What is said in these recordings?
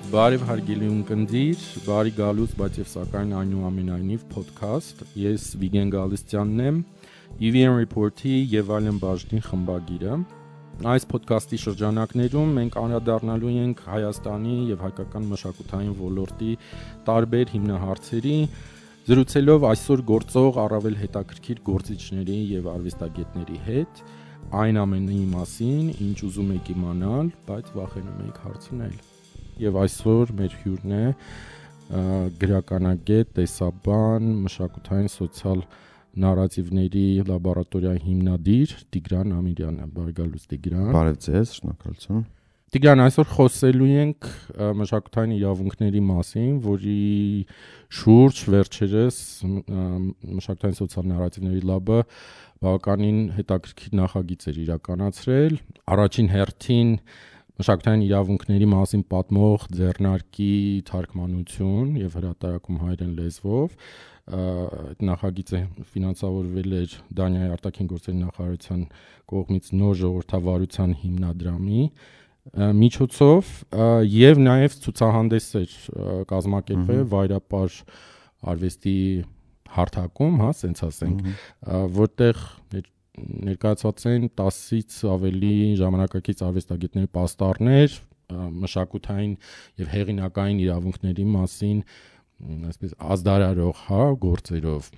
Բարև հարգելի ունկնդիր, բարի գալուց, բայց եւ սակայն այնուամենայնիվ podcast։ Ես Վիգեն Գալստյանն եմ, EVN Report-ի եւ այլն բաժնի խմբագիրը։ Այս podcast-ի շրջանակներում մենք անդրադառնալու ենք Հայաստանի եւ հայկական մշակութային ոլորտի տարբեր հիմնահարցերի, զրուցելով այսօր գործող առավել հետաքրքիր գործիչների եւ արվեստագետների հետ, այն ամենի մասին, ինչ ուզում եք իմանալ, բայց վախենում եք հարցնել։ Եվ այսօր մեր հյուրն է գրականագետ, տեսաբան, մշակութային սոցիալ նարատիվների լաբորատորիայի հիմնադիր Տիգրան Ամիրյանը։ Բարի գալուց Տիգրան։ Բարև ձեզ, շնորհակալություն։ Տիգրան, այսօր խոսելու ենք մշակութային իրավունքների մասին, որի շուրջ վերջերս մշակութային սոցիալ նարատիվների լաբը բավականին հետաքրքիր նախագիծ էր իրականացրել։ Առաջին հերթին մշակութային իրավունքների մասին պատմող ձեռնարկի թարգմանություն եւ հրատարակում հայերեն լեզվով։ Այդ նախագիծը ֆինանսավորվել էր Դանիայի արտաքին գործերի նախարարության կողմից նոր ժողովրդավարության հիմնադրամի միջոցով եւ նաեւ ցուցահանդես էր կազմակերպվել վայրապար արվեստի հարթակում, ասենց ասենք, որտեղ ներկայացված են 10-ից ավելի ժամանակակից արվեստագետների պաստառներ մշակութային եւ հեղինակային իրավունքների մասին, այսպես ազդարարող, գործերով։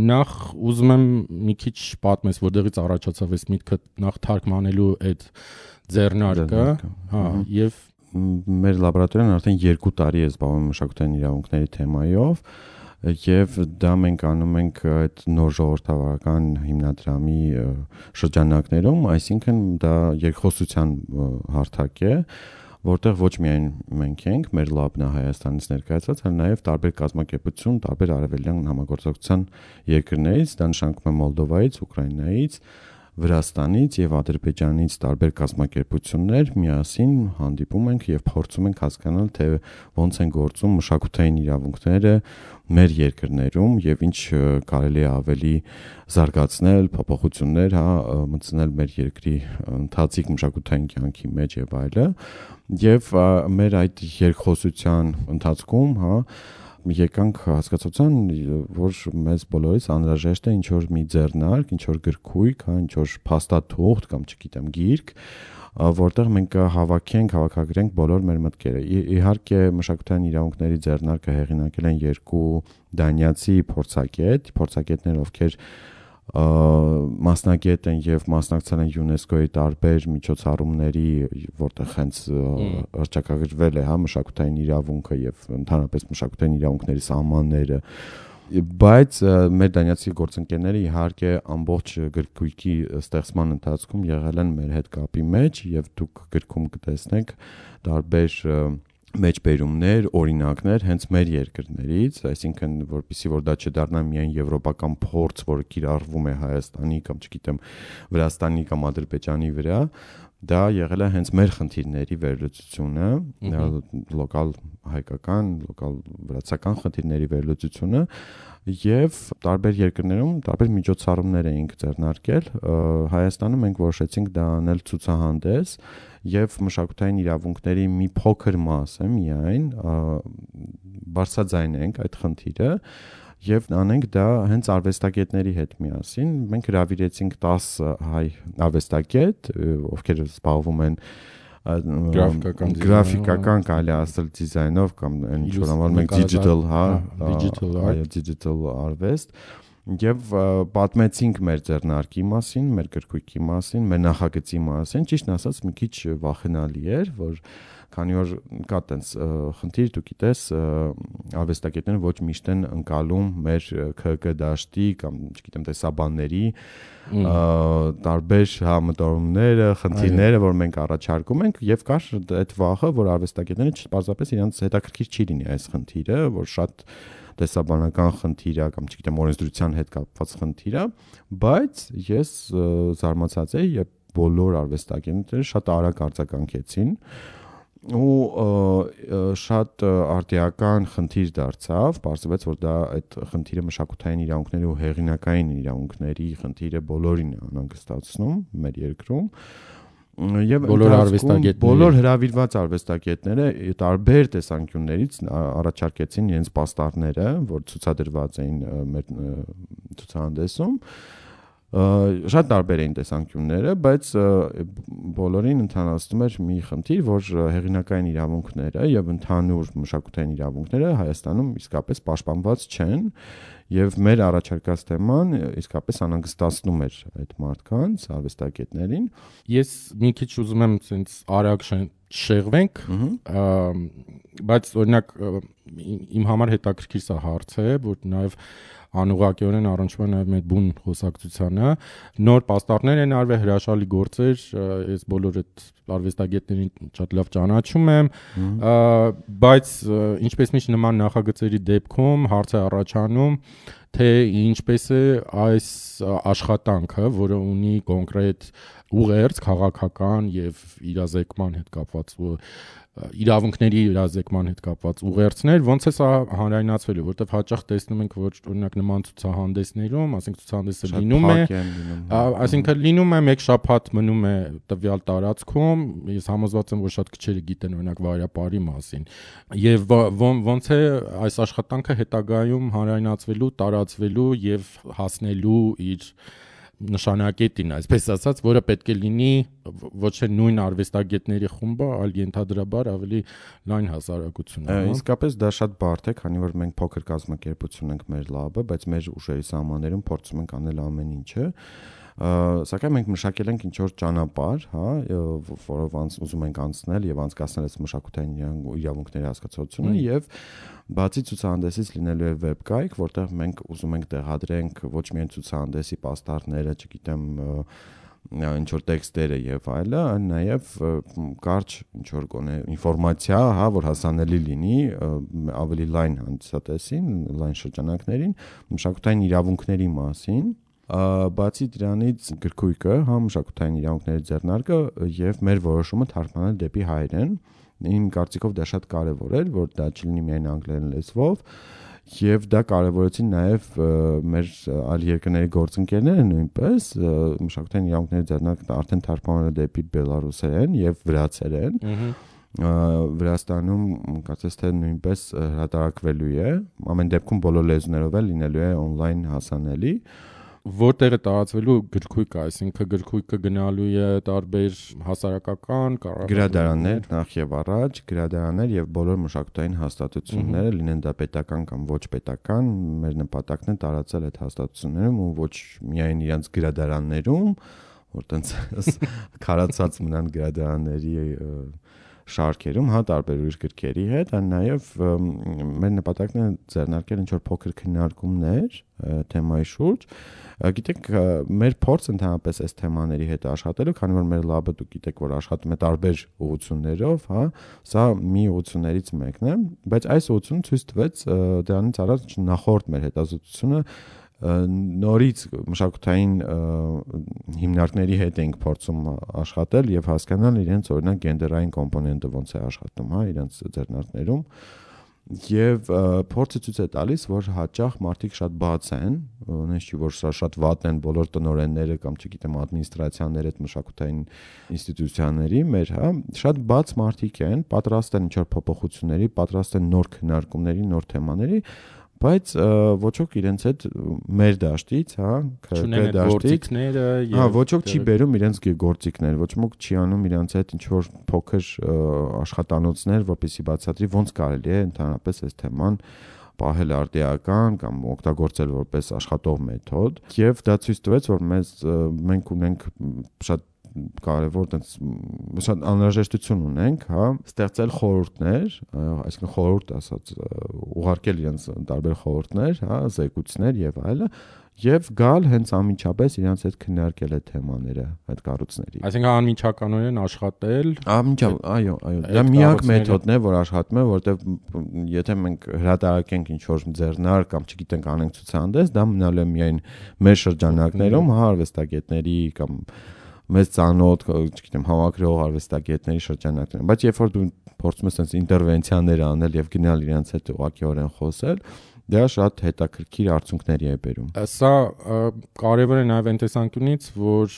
Նախ ուզում եմ մի քիչ պատմես, որտեղից առաջացավ այս միտքը նախ թարգմանելու այդ ձեռնարկը, եւ մեր լաբորատորիան արդեն 2 տարի է զբաղվում մշակութային իրավունքների թեմայով եւ դա մենք անում ենք այդ նոր ժողովրդավարական հիմնադրամի շրջանակներում, այսինքն դա երկխոսության հարթակ է, որտեղ ոչ միայն մենք ենք, մեր լաբն է Հայաստանից ներկայացված, այլ նաեւ տարբեր կազմակերպություն, տարբեր արևելյան համագործակցության երկրներից, դա նշանակում է Մոլդովայից, Ուկրաինայից, Վրաստանից եւ Ադրբեջանից տարբեր կազմակերպություններ միասին հանդիպում ենք եւ փորձում ենք հասկանալ, թե ոնց են գործում մշակութային իրավունքները մեր երկրներում եւ ինչ կարելի է ավելի զարգացնել, փոփոխություններ, մտցնել մեր երկրի ընթացիկ մշակութային կյանքի մեջ եւ այլը։ Եվ մեր այդ երկխոսության ընթացքում, եկանք հասկացության, որ մեզ բոլորիս անհրաժեշտ է ինչ որ մի ձեռնարկ, ինչ որ գրքույկ, ինչ որ փաստաթուղթ կամ չգիտեմ գիրք, որտեղ մենք հավաքագրենք բոլոր մեր մտքերը։ Իհարկե մշակութային իրավունքների ձեռնարկը հեղինակել են 2 դանիացի փորձագետներ, ովքեր մասնագետ են եւ մասնակցել են ՅՈՒՆԵՍԿՕ-ի տարբեր միջոցառումների, որտեղ հենց հռչակագրվել է մշակութային իրավունքը եւ ընդհանրապես մշակութային իրավունքների սահմանները, բայց մեր դանիացի գործընկերները իհարկե ամբողջ գրքույկի ստեղծման ընթացքում եղել են մեր հետ կապի մեջ եւ դուք գրքում կտեսնեք տարբեր մեջբերումներ, օրինակներ հենց մեր երկրներից, այսինքն որպեսզի որ դա չդառնա միայն եվրոպական փորձ, որը կիրառվում է Հայաստանի կամ չգիտեմ Վրաստանի կամ Ադրբեջանի վրա, դա եղել է հենց մեր խնդիրների վերլուծությունը, լոկալ հայկական, լոկալ վրացական խնդիրների վերլուծությունը եւ տարբեր երկրներում տարբեր միջոցառումներ էինք ձեռնարկել։ Հայաստանում մենք որոշեցինք դա անել ցուցահանդես եւ մշակութային իրավունքների մի փոքր մասը միայն բարձրաձայնենք այդ խնդիրը եւ անենք դա հենց արվեստագետների հետ միասին։ Մենք հրավիրեցինք 10 հայ արվեստագետ, ովքեր զբաղվում են գրաֆիկական կարելի ասել դիզայնով կամ ինչ որ անվանում ենք digital արվեստ եւ պատմեցինք մեր ձեռնարկի մասին, մեր գրքույկի մասին, մեր նախագծի մասին, ճիշտ ասած մի քիչ վախենալի էր, որ քանի որ կա տենց խնդիր, դու գիտես, արվեստագետները ոչ միշտ են ընկալում մեր ՔԿ դաշտի կամ չգիտեմ տեսաբանների տարբեր մտորումները, խնդիրները, որ մենք առաջարկում ենք եւ կար այդ վախը, որ արվեստագետները պարզապես իրենց հետաքրքիր չի լինի այս խնդիրը, որ շատ տեսաբանական խնդիր է կամ չգիտեմ օրենսդրության հետ կապված խնդիր է, բայց ես զարմացած եի, երբ բոլոր արվեստագետները շատ արագ արձագանքեցին ու շատ արտիական խնդիր դարձավ, պարզվեց, որ դա այդ խնդիրը մշակութային իրավունքների ու հեղինակային իրավունքների խնդիրը բոլորին է անհանգստացնում մեր երկրում Եվ բոլոր հրավիրված արվեստագետները տարբեր տեսանկյուններից առաջարկեցին իրենց պաստառները, որ ցուցադրված էին մեր ցուցահանդեսում։ Շատ տարբեր էին տեսանկյունները, բայց բոլորին ընդհանրացնում էր մի խնդիր, որ հեղինակային իրավունքները եւ ընդհանուր մշակութային իրավունքները Հայաստանում իսկապես պաշտպանված չեն, եւ մեր առաջարկած թեման իսկապես անհանգստացնում էր այդ մարդկանց, արվեստագետներին։ Ես մի քիչ ուզում եմ ասենց արագ շեղվենք, բայց օրինակ իմ համար հետաքրքիր սա հարց է, որ նաեւ անուղղակիորեն առնչվում է նաև մեր բուն խոսակցությանը, նոր պաստառներ են արվել, հրաշալի գործեր, ես բոլոր այդ արվեստագետներին շատ լավ ճանաչում եմ, բայց ինչպես միշտ նման նախագծերի դեպքում հարց է առաջանում, թե ինչպես է այս աշխատանքը, որը ունի կոնկրետ ուղերձ քաղաքական եւ իրազեկման հետ կապված իրավունքների իրազեկման հետ կապված ուղերձներ, ոնց է սա հանրայնացվելու, որտեղ հաճախ տեսնում ենք, որ օրինակ նման ցուցահանդեսներում, ասենք ցուցահանդեսը լինում է, այսինքն լինում է մեկ շաբաթ մնում է տվյալ տարածքում, ես համոզված եմ, որ շատ քչերը գիտեն օրինակ վարյապարի մասին, եւ ոնց է այս աշխատանքը հետագայում հանրայնացվելու, տարածվելու եւ հասնելու իր նշանակետին, այսպես ասած, որը պետք է լինի ոչ թե նույն արվեստագետների խումբը, այլ ենթադրաբար ավելի լայն հասարակություն։ Իսկապես դա շատ բարդ է, քանի որ մենք փոքր կազմակերպություն ենք մեր լաբը, բայց մեր ուժերի սահմաններում փորձում ենք անել ամեն ինչը։ Սակայն մենք մշակել ենք ինչ-որ ճանապարհ, հա, որով ուզում ենք անցնել եւ անցկացնել այս մշակութային իրավունքների հասկացությունը եւ բացի ցուցահանդեսից լինելու է վեբկայք, որտեղ մենք ուզում ենք տեղադրենք ոչ միայն ցուցահանդեսի պաստառները, չգիտեմ, ինչ որ տեքստերը եւ այլը, այլ նաեւ կարճ ինչ որ գոնե ինֆորմացիա, հա, որ հասանելի լինի ավելի լայն հանդիսատեսին, լայն շրջանակներին, մշակութային իրավունքների մասին։ Բացի դրանից գրքույկը, հա, մշակութային իրավունքների ձեռնարկը եւ մեր որոշումը թարգմանել դեպի հայերեն, իմ կարծիքով դա շատ կարեւոր էր, որ դա չլինի միայն անգլերեն լեզվով, եւ դա կարեւորեցին նաեւ մեր այլ երկրների գործընկերները նույնպես, մշակութային իրավունքների ձեռնարկը արդեն թարգմանել է դեպի բելարուսերեն եւ վրացերեն։ Վրաստանում կարծես թե նույնպես հրատարակվելու է, ամեն դեպքում բոլոր լեզուներով է լինելու է on-line հասանելի։ Որտեղ է տարածվելու գրքույկը, այսինքն գրքույկը գնալու է տարբեր հասարակական գրադարաններ, նախ եւ առաջ գրադարաններ եւ բոլոր մշակութային հաստատությունները, լինեն դա պետական կամ ոչ պետական, մեր նպատակն է տարածել այդ հաստատություններում ու ոչ միայն իրենց գրադարաններում, որ տենց քարացած մնան գրադարանների շարքերում, հա, տարբեր ուրիշ գրքերի հետ, այլ նաև մեր նպատակն է ձեռնարկել ինչ-որ փոքր քննարկումներ թեմայի շուրջ։ Գիտեք, մեր փորձը ընդհանրապես այս թեմաների հետ աշխատելու, քանի որ մեր լաբը դուք գիտեք, որ աշխատում է տարբեր ուղղություններով, հա, սա մի ուղղություններից մեկն է, բայց այս ուղղությունը ցույց տվեց դրանից առաջ նախորդ մեր հետազոտությունը նորից մշակութային հիմնարկների հետ ենք փորձում աշխատել եւ հասկանալ իրենց օրինակ գենդերային կոմպոնենտը ոնց է աշխատում, հա, իրենց ձեռնարկներում եւ փորձը ցույց է տալիս, որ հաճախ մարդիկ շատ բաց են, նույնիսկ չի որ շատ վատ են բոլոր տնօրենները կամ չգիտեմ ադմինիստրացիաները այդ մշակութային ինստիտուցիաների մեր, հա, շատ բաց մարդիկ են, պատրաստ են ինչ-որ փոփոխությունների, պատրաստ են նոր քննարկումների, նոր թեմաների, բայց ոչ ոք իրենց հետ մեր դաշտից, հա, գործիքները, հա, ոչ ոք չի բերում իրենց գործիքներ, ոչ ոք չի անում իրենց հետ ինչ որ փոքր աշխատանոցներ, որպեսզի բացատրի ոնց կարելի է ընդհանրապես այս թեման պահել արդիական կամ օգտագործել որպես աշխատող մեթոդ, եւ դա ցույց տվեց, որ մենք ունենք շատ կարևոր այդպես շատ անհրաժեշտություն ունենք, հա, ստեղծել խորհուրդներ, այսինքն խորհուրդ ասած ուղարկել իրենց տարբեր խորհուրդներ, հա, զեկույցներ եւ այլը, եւ գալ հենց անմիջապես իրենց հետ քննարկել այդ թեմաները, այդ կառույցների։ Այսինքն անմիջականորեն աշխատել։ Այո, դա միակ մեթոդն է, որ աշխատում է, որտեղ եթե մենք հրատարակենք ինչ-որ ձեռնարկ կամ չգիտենք անենք ցուցահանդես, դա մնալու է միայն մեր շրջանակներում, հա, արվեստագետների կամ մեծ ծանոթ, չգիտեմ, համակրող արվեստագետների շրջանակներում, բայց երբ որ դու փորձում ես այնպես ինտերվենցիաներ անել եւ գնալ իրենց հետ ուղղակիորեն խոսել, դա շատ հետաքրքիր արդյունքների է բերում։ Սա կարևոր է նաև այն տեսանկյունից, որ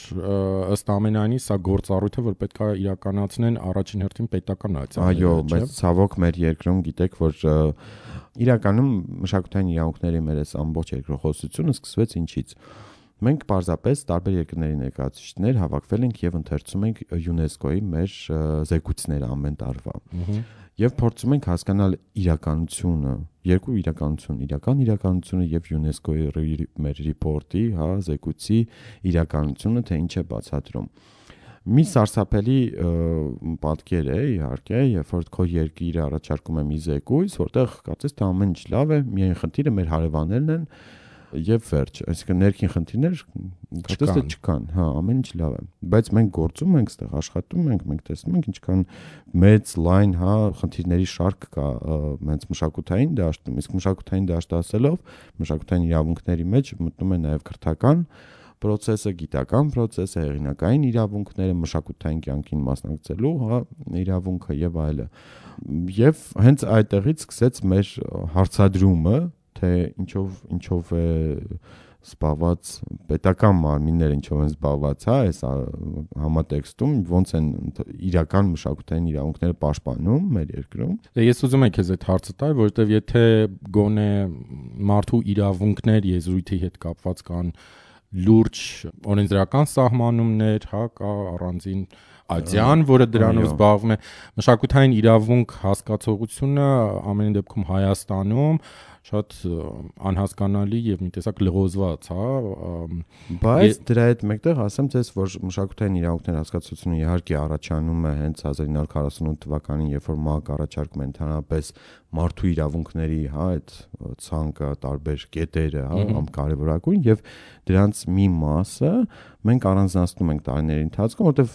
ըստ ամենայնի սա գործառույթ է, որ պետք է իրականացնեն առաջին հերթին պետական այցելուները։ Այո, բայց ցավոք մեր երկրում գիտեք, որ իրականում մշակութային իրավունքների մեր այս ամբողջ երկրոխոսությունը սկսվեց ինչից։ Մենք պարզապես տարբեր երկրների ներկայացուցիչներ հավաքվել ենք եւ ընթերցում ենք ՅՈՒՆԵՍԿՕ-ի մեր զեկույցները ամեն տարվա։ Եվ փորձում ենք հասկանալ իրականությունը, երկու իրականություն, իրական իրականությունը եւ ՅՈՒՆԵՍԿՕ-ի մեր ռիպորտի, զեկույցի իրականությունը, թե ինչ է բացատրում։ Մի սարսափելի պատկեր է, իհարկե, երբ որ քո երկիրը առաջարկում է մի զեկույց, որտեղ կարծես թե ամեն ինչ լավ է, միայն խնդիրը մեր հարևաններն են եւ վերջ, այսինքն ներքին խնդիրներ կարծես թե չկան, ամեն ինչ լավ է, բայց մենք գործում ենք, այդտեղ աշխատում ենք, մենք տեսնում ենք ինչքան մեծ լայն, խնդիրների շարք կա հենց մշակութային դաշտում, իսկ մշակութային դաշտ ասելով, մշակութային իրավունքների մեջ մտնում է նաեւ քրթական process-ը, գիտական process-ը, հեղինակային իրավունքները, մշակութային կյանքին մասնակցելու, իրավունքը եւ այլը։ Եվ հենց այդտեղից սկսեց մեր հարցադրումը, թե ինչով է զբաղված պետական մարմինները, ինչով են զբաղված, այս համատեքստում, ոնց են իրական մշակութային իրավունքները պաշտպանում մեր երկրում։ Ես ուզում եմ քեզ այդ հարցը տալ, որովհետեւ եթե գոնե մարդու իրավունքներ եզրույթի հետ կապված կան լուրջ օրենսդրական սահմանումներ, կա առանձին ատյան, որը դրանով զբաղվում է, մշակութային իրավունք հասկացողությունը ամեն դեպքում Հայաստանում շատ անհասկանալի եւ մի տեսակ լղոզված, բայց դրա հետ մեկտեղ ասեմ ձեզ, որ մշակութային իրավունքներ հասկացությունը իհարկե առաջանում է հենց 1948 թվականին, երբ որ ՄԱԿ առաջարկում է ընդհանրապես մարդու իրավունքների, այդ ցանկը, տարբեր կետերը, ամկարևորագույն, եւ դրանց մի մասը մենք առանձնացնում ենք տարիների ընթացքում, որտեվ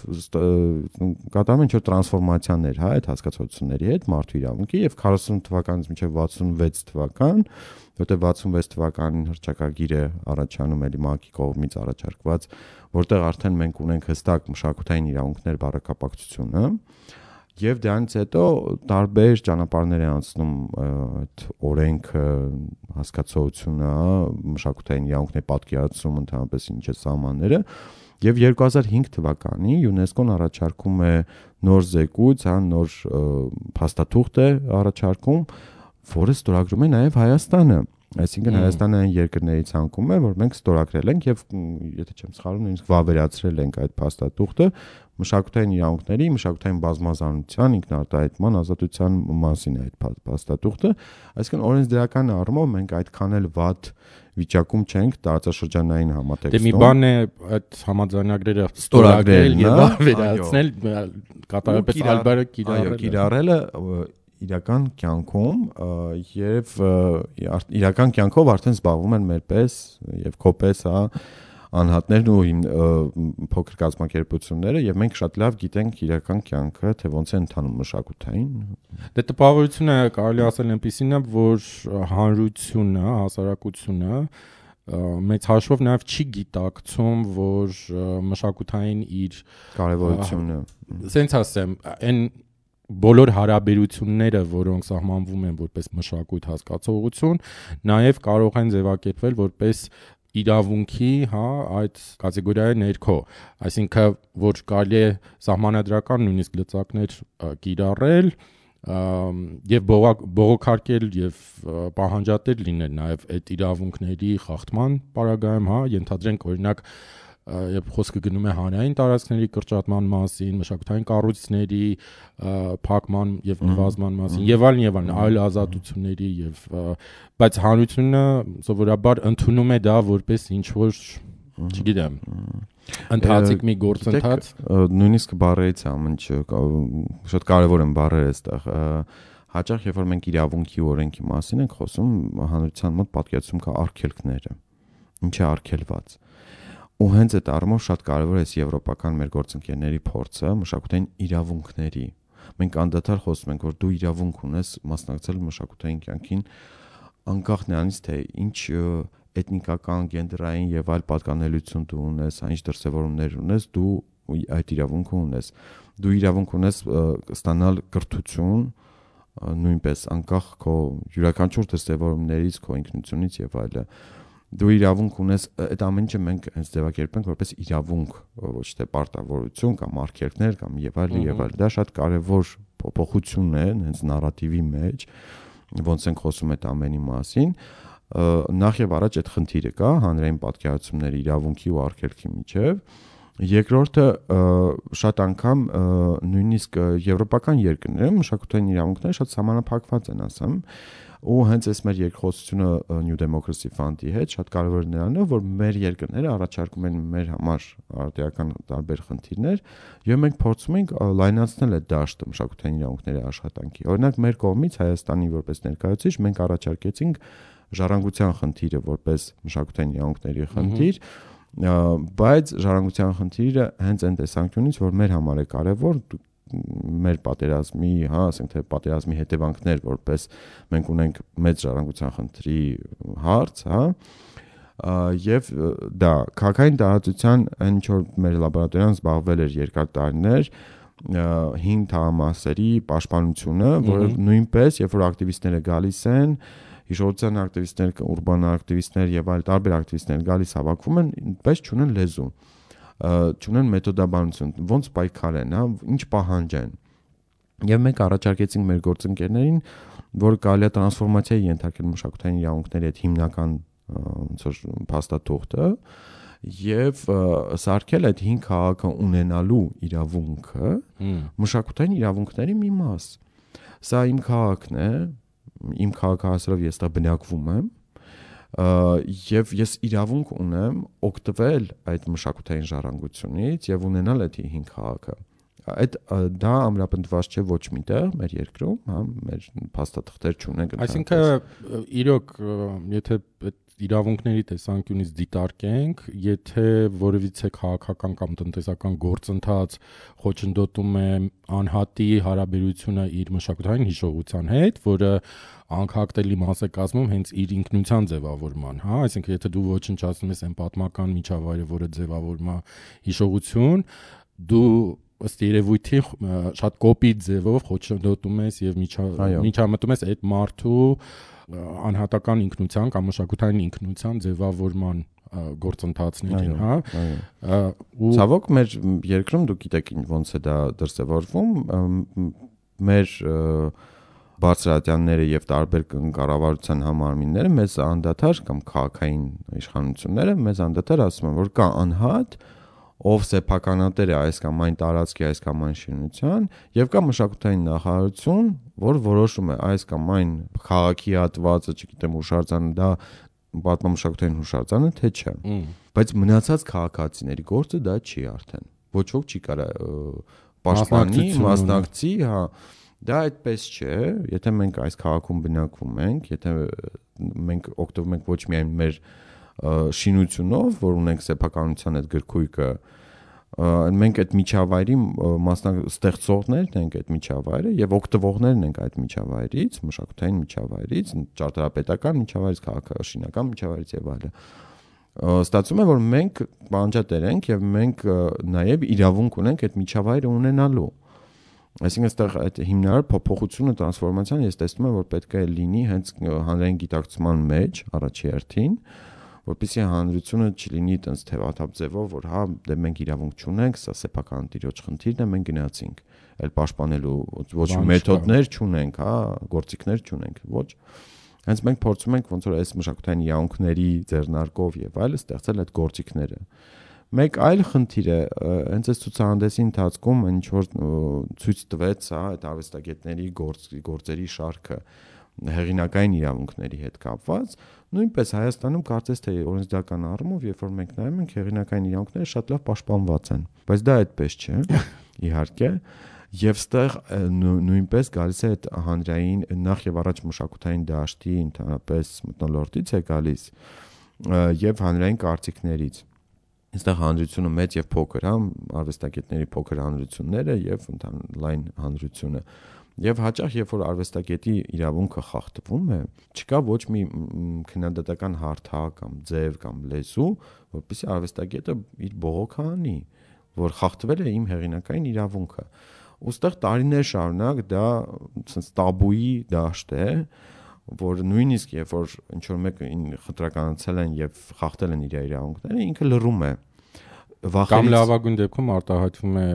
կատարում են ինչ-որ տրանսֆորմացիաներ, այդ հասկացությունների հետ մարդու իրավունքի եւ 48 թվականից մինչեւ 66 թվական, որտեվ 66 թվականին հռչակագիրը առաջանում էլի ՄԱԿ-ի կողմից առաջարկված, որտեղ արդեն մենք ունենք հստակ մշակութային իրավունքներ բառակապակցությունը, եւ դրանից հետո տարբեր ճանապարհներ է անցնում այդ օրենքը, հասկացողությունը, մշակութային իրավունքների պատկերացում, ընդհանրապես ինչ է սահմանները, եւ 2005 թվականին ՅՈՒՆԵՍԿՕ-ն առաջարկում է նոր զեկույց, նոր փաստաթուղթ է առաջարկում, որը ստորագրում է նաեւ Հայաստանը։ Այսինքն Հայաստանը այն երկրների ցանկում է, որ մենք ստորագրել ենք եւ եթե չեմ սխալվում, նույնիսկ վավերացրել ենք այդ փաստաթուղթը մշակութային իրավունքների, մշակութային բազմազանության, ինքնարտահայտման ազատության մասին է այդ փաստաթուղթը, այսինքն օրենսդրական առումով մենք այդքան էլ վատ վիճակում չենք տարածաշրջանային համատեքստում։ Դե մի բան է այդ համաձայնագրերը ստորագրել եւ վավերացնել, կատարապես ալբարը կիրառելը իրական կյանքում եւ իրական կյանքով արդեն զբաղվում են մեր պես եւ քոպես, անհատներն ու փոքր կազմակերպությունները եւ մենք շատ լավ գիտենք իրական կյանքը, թե ոնց է ընթանում մշակութային։ Դե տպավորությունը կարելի ասել այնպեսին է, որ հանրությունը, հասարակությունը մեծ հաշվով նաեւ չի գիտակցում, որ մշակութային իր կարեւորությունը, ասենց ասեմ, այն բոլոր հարաբերությունները, որոնք սահմանվում են որպես մշակույթ հասկացողություն, նաև կարող են ձևակերպվել որպես իրավունքի, այդ կատեգորիայի ներքո, այսինքն որ կարելի է սահմանադրական նույնիսկ լծակներ կիրառել եւ բողոքարկել եւ պահանջատեր լինել նաև այդ իրավունքների խախտման պարագայում, ենթադրենք օրինակ երբ խոսքը գնում է հանրային տարածքների կրճատման մասին, մշակութային կառույցների փակման եւ նվազման մասին եւ այլն, այլ ազատությունների եւ բայց հանրությունը սովորաբար ընդունում է դա որպես ինչ որ, չգիտեմ, ընթացիկ մի գործընթաց, նույնիսկ բառերից ամեն ինչ շատ կարեւոր են բառերը այստեղ։ Հաճախ երբ որ մենք իրավունքի օրենքի մասին ենք խոսում, հանրության մոտ պատկերացում կա արգելքները։ Ինչ է արգելված։ Ու հենց այդ առումով շատ կարևոր է եվրոպական մեր գործընկերների փորձը մշակութային իրավունքների։ Մենք անդադար խոսում ենք, որ դու իրավունք ունես մասնակցել մշակութային կյանքին, անկախ նրանից, թե ինչ էթնիկական, գենդերային եւ այլ պատկանելություն դու ունես, ինչ դրսևորումներ ունես, դու այդ իրավունքը ունես։ Դու իրավունք ունես ստանալ կրթություն, նույնպես անկախ քո յուրաքանչյուր դրսևորումներից, քո ինքնությունից եւ այլն։ Դու իրավունք ունես, այդ ամեն ինչը մենք հենց ձևակերպենք որպես իրավունք, ոչ թե պարտավորություն կամ արգելքներ կամ եւ այլն։ Դա շատ կարեւոր փոփոխություն է հենց նարատիվի մեջ, ոնց ենք խոսում այդ ամենի մասին։ Նախ եւ առաջ այդ խնդիրը կա հանրային պատկերացումների իրավունքի ու արգելքի միջեւ։ Երկրորդը շատ անգամ նույնիսկ եվրոպական երկրներում մշակութային իրավունքները շատ սահմանափակված են, ասեմ, ու հենց այս մեր երկխոսությունը New Democracy Fund-ի հետ շատ կարևոր է նրանով, որ մեր երկրները առաջարկում են մեր համար արտադրական տարբեր խնդիրներ, եւ մենք փորձում ենք լայնացնել այդ դաշտը մշակութային իրավունքների աշխատանքի։ Օրինակ մեր կողմից Հայաստանի որպես ներկայացուցիչ մենք առաջարկեցինք ժառանգության խնդիրը որպես մշակութային իրավունքների խնդիր, բայց ժառանգության խնդիրը հենց այն տեսանկյունից, որ մեր համար է կարևոր մեր պատերազմի, ասենք թե պատերազմի հետևանքներ, որպես մենք ունենք մեծ ժառանգության խնդրի հարց, եւ դա քաղաքային տարածության այն ինչ որ մեր լաբորատորիան զբաղվել էր երկար տարիներ 5 թաղամասերի պաշտպանությունը, որը նույնպես երբ որ ակտիվիստները գալիս են հիշողության ակտիվիստներ, ուրբան ակտիվիստներ եւ այլ տարբեր ակտիվիստներ գալիս հավաքվում են, պես չունեն լեզու, չունեն մեթոդաբանություն, ոնց պայքարեն, ինչ պահանջ են։ Եվ մենք առաջարկեցինք մեր գործընկերներին, որ կարելի է տրանսֆորմացիայի ենթարկել մշակութային իրավունքների այդ հիմնական ոնց որ փաստաթուղթը եւ սարքել այդ 5 քաղաքը ունենալու իրավունքը մշակութային իրավունքների մի մաս։ Սա իմ քաղաքն է, իմ քաղաքահասարով ես դա բնակվում եմ եւ ես իրավունք ունեմ օգտվել այդ մշակութային ժառանգությունից եւ ունենալ այդ 5 քաղաքը։ Այդ դա ամրապնդված չէ ոչ միտեղ մեր երկրում, մեր փաստաթղթեր չունենք։ Այսինքն իրոք եթե այդ իրավունքների տեսանկյունից դիտարկենք, եթե որևիցե քաղաքական կամ տնտեսական գործընթաց խոչընդոտում է անհատի հարաբերությունը իր մշակութային հիշողության հետ, որը անքակտելի մաս է կազմում հենց իր ինքնության ձևավորման, այսինքն եթե դու ոչնչացնում ես այն պատմական միջավայրը, որը ձևավորում է հիշողություն, դու ըստ երևույթի շատ կոպիտ ձևով խոչընդոտում ես եւ միջամտում ես այդ մարդու անհատական ինքնության կամ մշակութային ինքնության ձևավորման գործընթացներին, ու ցավոք մեր երկրում դուք գիտեք ոնց է դա դրսևորվում, մեր բարձրաստիճանները եւ տարբեր կառավարության համարմինները մեզ անդադար կամ քաղաքային իշխանությունները մեզ անդադար ասում են, որ կա անհատ ով սեփականատեր է այս կամ այն տարածքի, այս կամ այն շինության, եւ կա մշակութային նախարարություն, որ որոշում է այս կամ այն քաղաքի հատվածը, չգիտեմ, հուշարձանը դա պատմամշակութային հուշարձանը թե չէ։ Բայց մնացած քաղաքացիների գործը դա չի արդեն։ Ոչ ոք չի կարա պաշտպանի, մասնակցի, դա այդպես չէ, եթե մենք այս քաղաքում բնակվում ենք, եթե մենք օգտվում ենք ոչ միայն մեր շինությունով, որ ունենք սեփականության այդ գրքույկը, մենք այդ միջավայրի ստեղծողներն ենք այդ միջավայրը եւ օգտվողներն ենք այդ միջավայրից, մշակութային միջավայրից, ճարտարապետական միջավայրից, քաղաքաշինական միջավայրից եւ այլն։ Ստացվում է, որ մենք պահանջատեր ենք եւ մենք նաեւ իրավունք ունենք այդ միջավայրը ունենալու։ Այսինքն այստեղ այդ հիմնարար փոփոխությունը տրանսֆորմացիան ես տեսնում եմ, որ պետք է լինի հենց հանրային գիտակցման մեջ առաջի հերթին, որպեսզի հանրությունը չլինի տենց թևաթափ ձևով, որ դե մենք իրավունք չունենք, սա սեփական տիրոջ խնդիրն է, մենք գնացինք, այլ պաշտպանելու ոչ մեթոդներ չունենք, գործիքներ չունենք, ոչ։ Հենց մենք փորձում ենք ոնց որ այս մշակութային իրավունքների ձեռնարկով եւ այլն ստեղծել այդ գործիքները։ Մեկ այլ խնդիր է, հենց այս ցուցահանդեսի ընթացքում ինչ որ ցույց տվեց, այդ արվեստագետների գործերի շարքը հեղինակային իրավունքների հետ կապված, նույնպես Հայաստանում կարծես թե օրենսդրական առումով, երբ որ մենք նայում ենք, հեղինակային իրավունքները շատ լավ պաշտպանված են, բայց դա այդպես չէ, իհարկե, եւ ստեղ նույնպես գալիս է այդ հանրային նախ եւ առաջ մշակութային դաշտի ընդհանրապես մթնոլորտից է գալիս եւ հանրային կարծիքներից։ Այստեղ հանրությունը մեծ եւ փոքր, արվեստագետների փոքր հանրությունները եւ լայն հանրությունը։ Եվ հաճախ երբ որ արվեստագետի իրավունքը խախտվում է, չկա ոչ մի քննադատական հարթակ կամ ձև կամ լեզու, որպեսզի արվեստագետը իր բողոքը անի, որ խախտվել է իմ հեղինակային իրավունքը։ ուստեղ տարիներ շարունակ դա sense տաբուի դաշտ է, որ նույնիսկ երբ որ ինչ որ մեկը խնդրականացել են եւ խախտել են իր իրավունքները, ինքը լռում է։ Կամ լավագույն դեպքում արտահայտվում է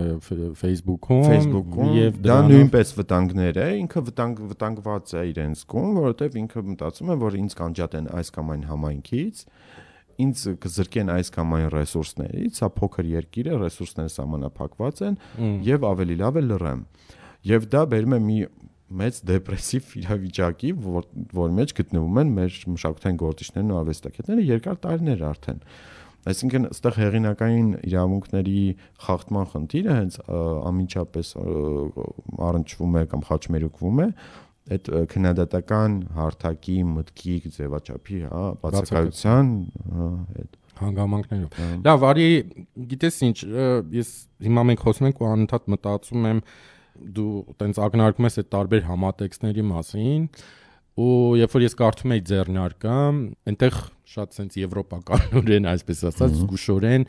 Facebook-ում եւ դա նույնպես վտանգներ է, ինքը վտանգված է իրենց կողմ, որովհետեւ ինքը մտածում է, որ ինձ կանջատեն այս կամ այն համայնքից, ինձ կզրկեն այս կամ այն ռեսուրսներից, սա փոքր երկիր է, ռեսուրսները սահմանափակված են եւ ավելի լավ է լռեմ։ Եվ դա բերում է մի մեծ դեպրեսիվ իրավիճակի, որ մեջ գտնվում են մեր մշակութային գործիչներն ու արվեստագետները երկար տարիներ արդեն։ Այսինքն, այստեղ հեղինակային իրավունքների խախտման խնդիրը հենց ամիջապես առնչվում է կամ խաչմերուկվում է այդ քննադատական հարթակի մտքի ձևաչափի, բացակայության հետ հանգամանքներով։ Լավ, արի, գիտես ինչ, ես հիմա մենք խոսում ենք ու անընդհատ մտածում եմ դու տենց ակնարկում ես այդ տարբեր համատեքստների մասին ու երբ որ ես կարդում եի ձեռնարկը, այնտեղ շատ sense եվրոպականորեն, այսպես ասած, զգուշորեն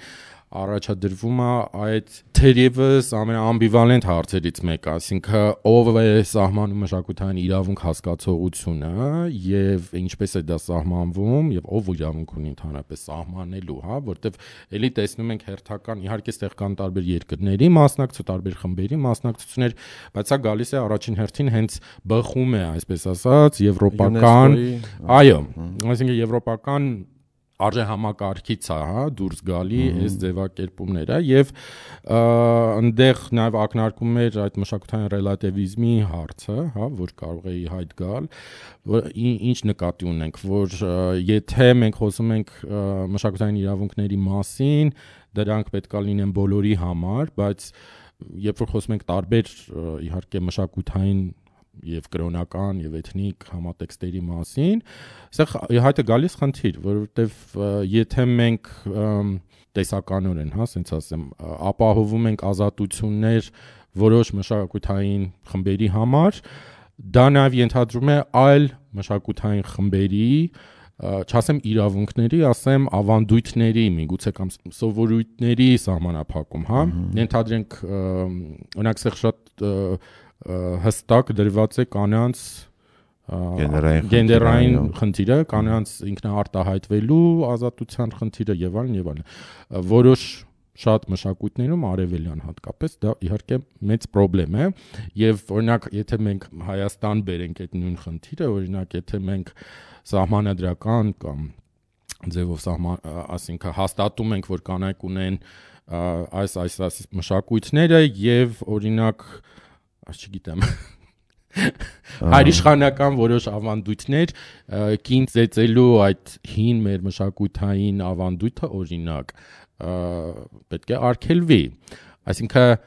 առաջադրվում է այդ թերևս ամենաամբիվալենտ հարցերից մեկը, այսինքն ով է սահմանում մշակութային իրավունք հասկացողությունը եւ ինչպես է դա սահմանվում եւ ով իրավունք ունի ընդհանրապես սահմանելու, հա, որտեվ էլի տեսնում ենք հերթական, իհարկե այստեղ կան տարբեր երկրների մասնակցություն, տարբեր խմբերի մասնակցություններ, բայց սա գալիս է առաջին հերթին հենց բխում է, այսպես ասած, եվրոպական, այո, այսինքն եվրոպական արժեհամակարգից է, հա, դուրս գալի այս ձևակերպումները եւ այնտեղ նաեւ ակնարկում էր այդ մշակութային ռելատիվիզմի հարցը, հա, որ կարող է հայտ գալ, որ ինչ նկատի ունենք, որ եթե մենք խոսում ենք մշակութային իրավունքների մասին, դրանք պետք է լինեն բոլորի համար, բայց երբ որ խոսում ենք տարբեր իհարկե մշակութային եւ կրոնական եւ էթնիկ համատեքստերի մասին, այստեղ հայտը գալիս խնդիր, որովհետեւ եթե մենք տեսականորեն, հա, ասենց ասեմ, ապահովում ենք ազատություններ որոշ մշակութային խմբերի համար, դա նաեւ ենթադրում է այլ մշակութային խմբերի, չասեմ իրավունքների, ասեմ ավանդույթների, միգուցե կամ սովորույթների սահմանափակում, հա, ենթադրենք օրինակ սեղ շատ հստակ դրված է կանանց գենդերային խնդիրը, կանանց ինքնաարտահայտվելու ազատության խնդիրը եւ այլն, որոշ շատ մշակույթներում արևելյան հատկապես դա իհարկե մեծ խնդրեմ է եւ օրինակ եթե մենք Հայաստան բերենք այդ նույն խնդիրը, օրինակ եթե մենք սահմանադրական կամ ձևով ասինքն հաստատում ենք, որ կանայք ունեն այս մշակույթները եւ օրինակ չգիտեմ հայրիշխանական որոշ ավանդույթներ կին ծեծելու այդ հին մեր մշակութային ավանդույթը օրինակ պետք է արգելվի, այսինքն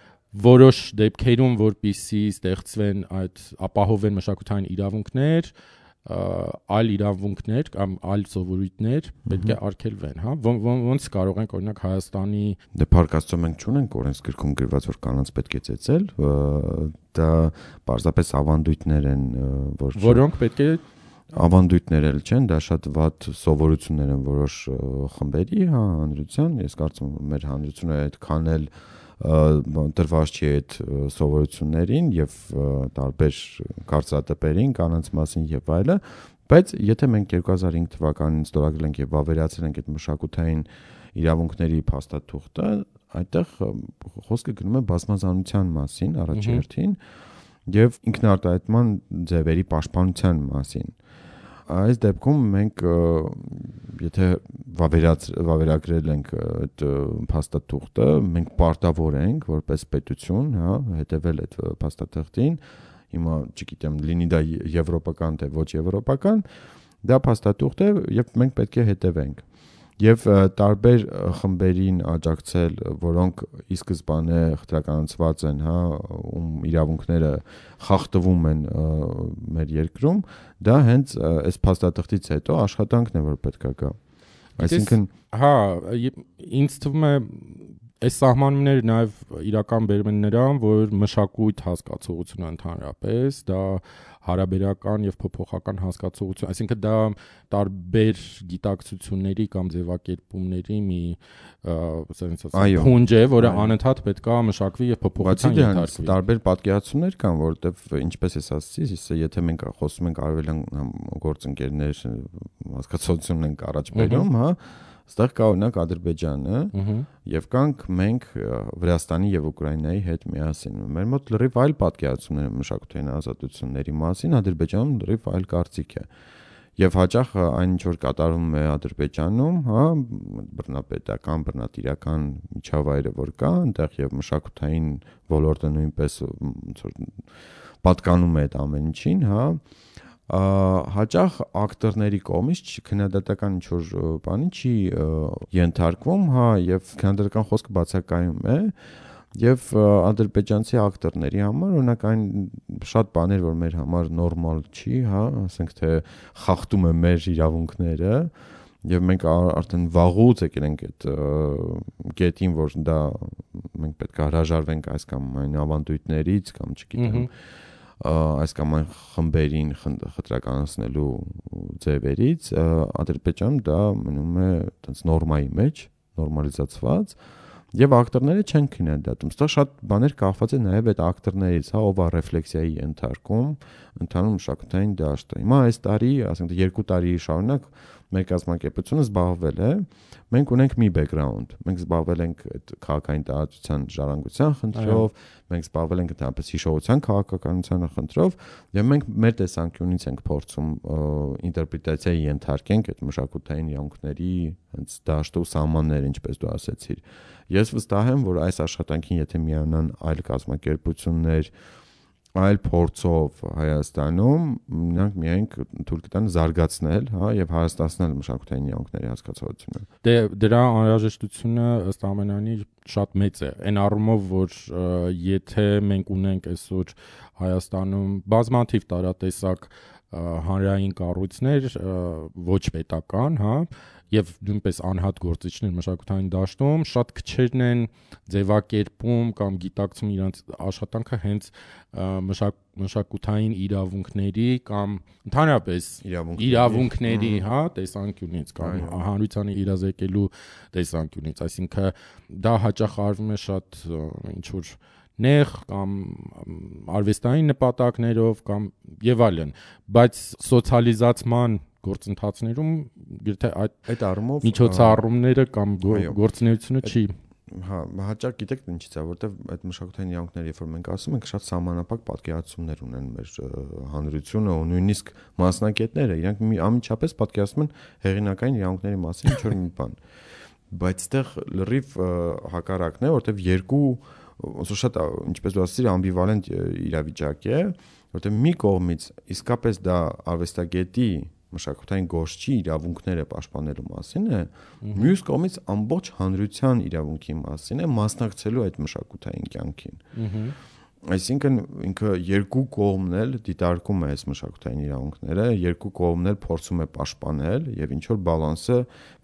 որոշ դեպքերում որպիսի ստեղծվեն այդ ապահովեն մշակութային իրավունքներ, այլ իրավունքներ կամ այլ սովորույթներ պետք է արգելվեն, հա, ոնց կարող ենք օրինակ Հայաստանի դե փառքաստո մենք չունենք օրենսգրքում գրված որ կանանց պետք է ծեծել, դա պարզապես ավանդույթներ են, որոնք պետք է ավանդույթներ էլ չեն, դա շատ վատ սովորություններ են որոշ խմբերի, հա, հանրության, ես կարծում եմ մեր հանրությունը այդքան էլ դրված չի այդ սովորություններին եւ տարբեր կարծրատիպերին կանանց մասին եւ այլը, բայց եթե մենք 2005 թվականին ստորագրել ենք եւ վավերացրել ենք այդ մշակութային իրավունքների փաստաթուղթը, այդտեղ խոսքը գնում է բազմազանության մասին առաջերտին եւ ինքնարտահայտման ձևերի պաշտպանության մասին։ Այս դեպքում մենք եթե վավերագրել ենք այդ փաստաթուղթը, մենք պարտավոր ենք որպես պետություն, հա, հետևել այդ փաստաթղթին, հիմա չգիտեմ, լինի դա եվրոպական թե ոչ եվրոպական, դա փաստաթուղթ է եւ մենք պետք է հետևենք։ Եվ տարբեր խմբերին աջակցել, որոնք ի սկզբանե խտրականացված են, հա, իրավունքները խախտվում են մեր երկրում, դա հենց այս փաստաթղթից հետո աշխատանքն է, որ պետք է գա։ Այսինքն, հա, ինձ թվում է այս սահմանումները նաև իրական բերում են նրան, որ մշակույթ հասկացողությունը ընդհանրապես դա հարաբերական եւ փոփոխական հասկացողություն, այսինքն դա տարբեր գիտակցությունների կամ ձևակերպումների մի փունջ է, որը անընդհատ պետքա մշակվի եւ փոփոխության ենթարկվի։ Տարբեր պատկերացումներ կան, որովհետեւ ինչպես ես ասացի, եթե մենք խոսում ենք արևելյան գործընկերներ հասկացությունն ենք առաջ բերում, հա, այստեղ կա օրինակ Ադրբեջանը եւ կանք մենք Վրաստանի եւ Ուկրաինայի հետ միասին։ Մեր մոտ լրիվ այլ պատկերացումներ են մշակութային ազատությունների մասին, Ադրբեջանում լրիվ այլ կարծիք է։ Եվ հաճախ այն ինչ որ կատարվում է Ադրբեջանում, հա, բռնապետական, բռնատիրական միջավայրը որ կա, այնտեղ եւ մշակութային ոլորտը նույնպես ոնց որ պատկանում է այդ ամեն ինչին, հա, հաճախ ակտորների կողմից քննադատական ինչ որ բանի չի ենթարկվում, հա, եւ քննադատական խոսքը բացակայում է եւ ադրբեջանցի ակտորների համար օրինակ այն շատ բաներ որ մեր համար նորմալ չի, հա, ասենք թե խախտում է մեր իրավունքները եւ մենք արդեն վաղուց եկել ենք այդ գետին որ դա մենք պետք է հրաժարվենք այս կամ այն ավանդույթներից կամ չգիտեմ այս կամ այն խմբերին խտրականացնելու ձևերից Ադրբեջանում դա մնում է այտենց նորմայի մեջ նորմալիզացված եւ ակտորները չեն քննադատում ստա շատ բաներ կախված է նաեւ այդ ակտորներից հա ով է ռեֆլեքսիայի ենթարկում ընդհանուր մշակութային դաշտը հիմա այս տարի ասենք 2 տարի շարունակ մեր կազմակերպությունը զբաղվել է մենք ունենք մի բեքգրաունդ մենք զբաղվել ենք այդ քաղաքային տարածության ժառանգության խնդրով մենք զբաղվել ենք ընդհանրապես հիշողության քաղաքականության խնդրով եւ մենք մեր տեսանկյունից ենք փորձում ինտերպրետացիայի ենթարկենք այդ մշակութային իրավունքների հենց դաշտը ու սահմանները ինչպես դու ասացիր ես վստահ եմ որ այս աշխատանքին եթե միանան այլ կազմակերպություններ այլ փորձով Հայաստանում նրանք միայն թույլ կտան զարգացնել, հա, եւ հարստացնել մշակութային իրավունքների հասկացությունը։ Դե դրա անհրաժեշտությունը ըստ ամենանի շատ մեծ է։ Այն առումով, որ եթե մենք ունենք այսօր Հայաստանում բազմաթիվ տարատեսակ հանրային կառույցներ ոչ պետական, հա, եւ նույնպես անհատ գործիչներ մշակութային դաշտում շատ քչերն են ձևակերպում կամ գիտակցում իրենց աշխատանքը հենց մշակութային իրավունքների կամ ընդհանրապես իրավունքների, հա, տեսանկյունից կամ հանրությանը իրազեկելու տեսանկյունից, այսինքն դա հաճախ արվում է շատ ինչ որ նեղ կամ արվեստային նպատակներով կամ եւ այլն, բայց սոցիալիզացման գործընթացներում գրեթե այդ առումով միջոցառումները կամ գործունեությունը չի հա հաճախ գիտեք ինչից է որտեվ այդ մշակութային իրավունքները երբ որ մենք ասում ենք շատ սահմանափակ պատկերացումներ ունեն մեր հանրությունը ու նույնիսկ մասնակիցները իրանք անմիջապես պատկերացնում են հեղինակային իրավունքների մասին ինչ որ մի բան բայց այդտեղ լրիվ հակառակն է որտեվ երկու ոնց որ շատ ինչպես դու ասացիր ամբիվալենտ իրավիճակ է որտեվ մի կողմից իսկապես դա արվեստագետի մշակութային գործչի իրավունքները պաշտպանելու մասին է, մյուս կողմից ամբողջ հանրության իրավունքի մասին է մասնակցելու այդ մշակութային կյանքին։ Այսինքն ինքը երկու կողմն էլ դիտարկում է այս մշակութային իրավունքները, երկու կողմն էլ փորձում է պաշտպանել եւ ինչ որ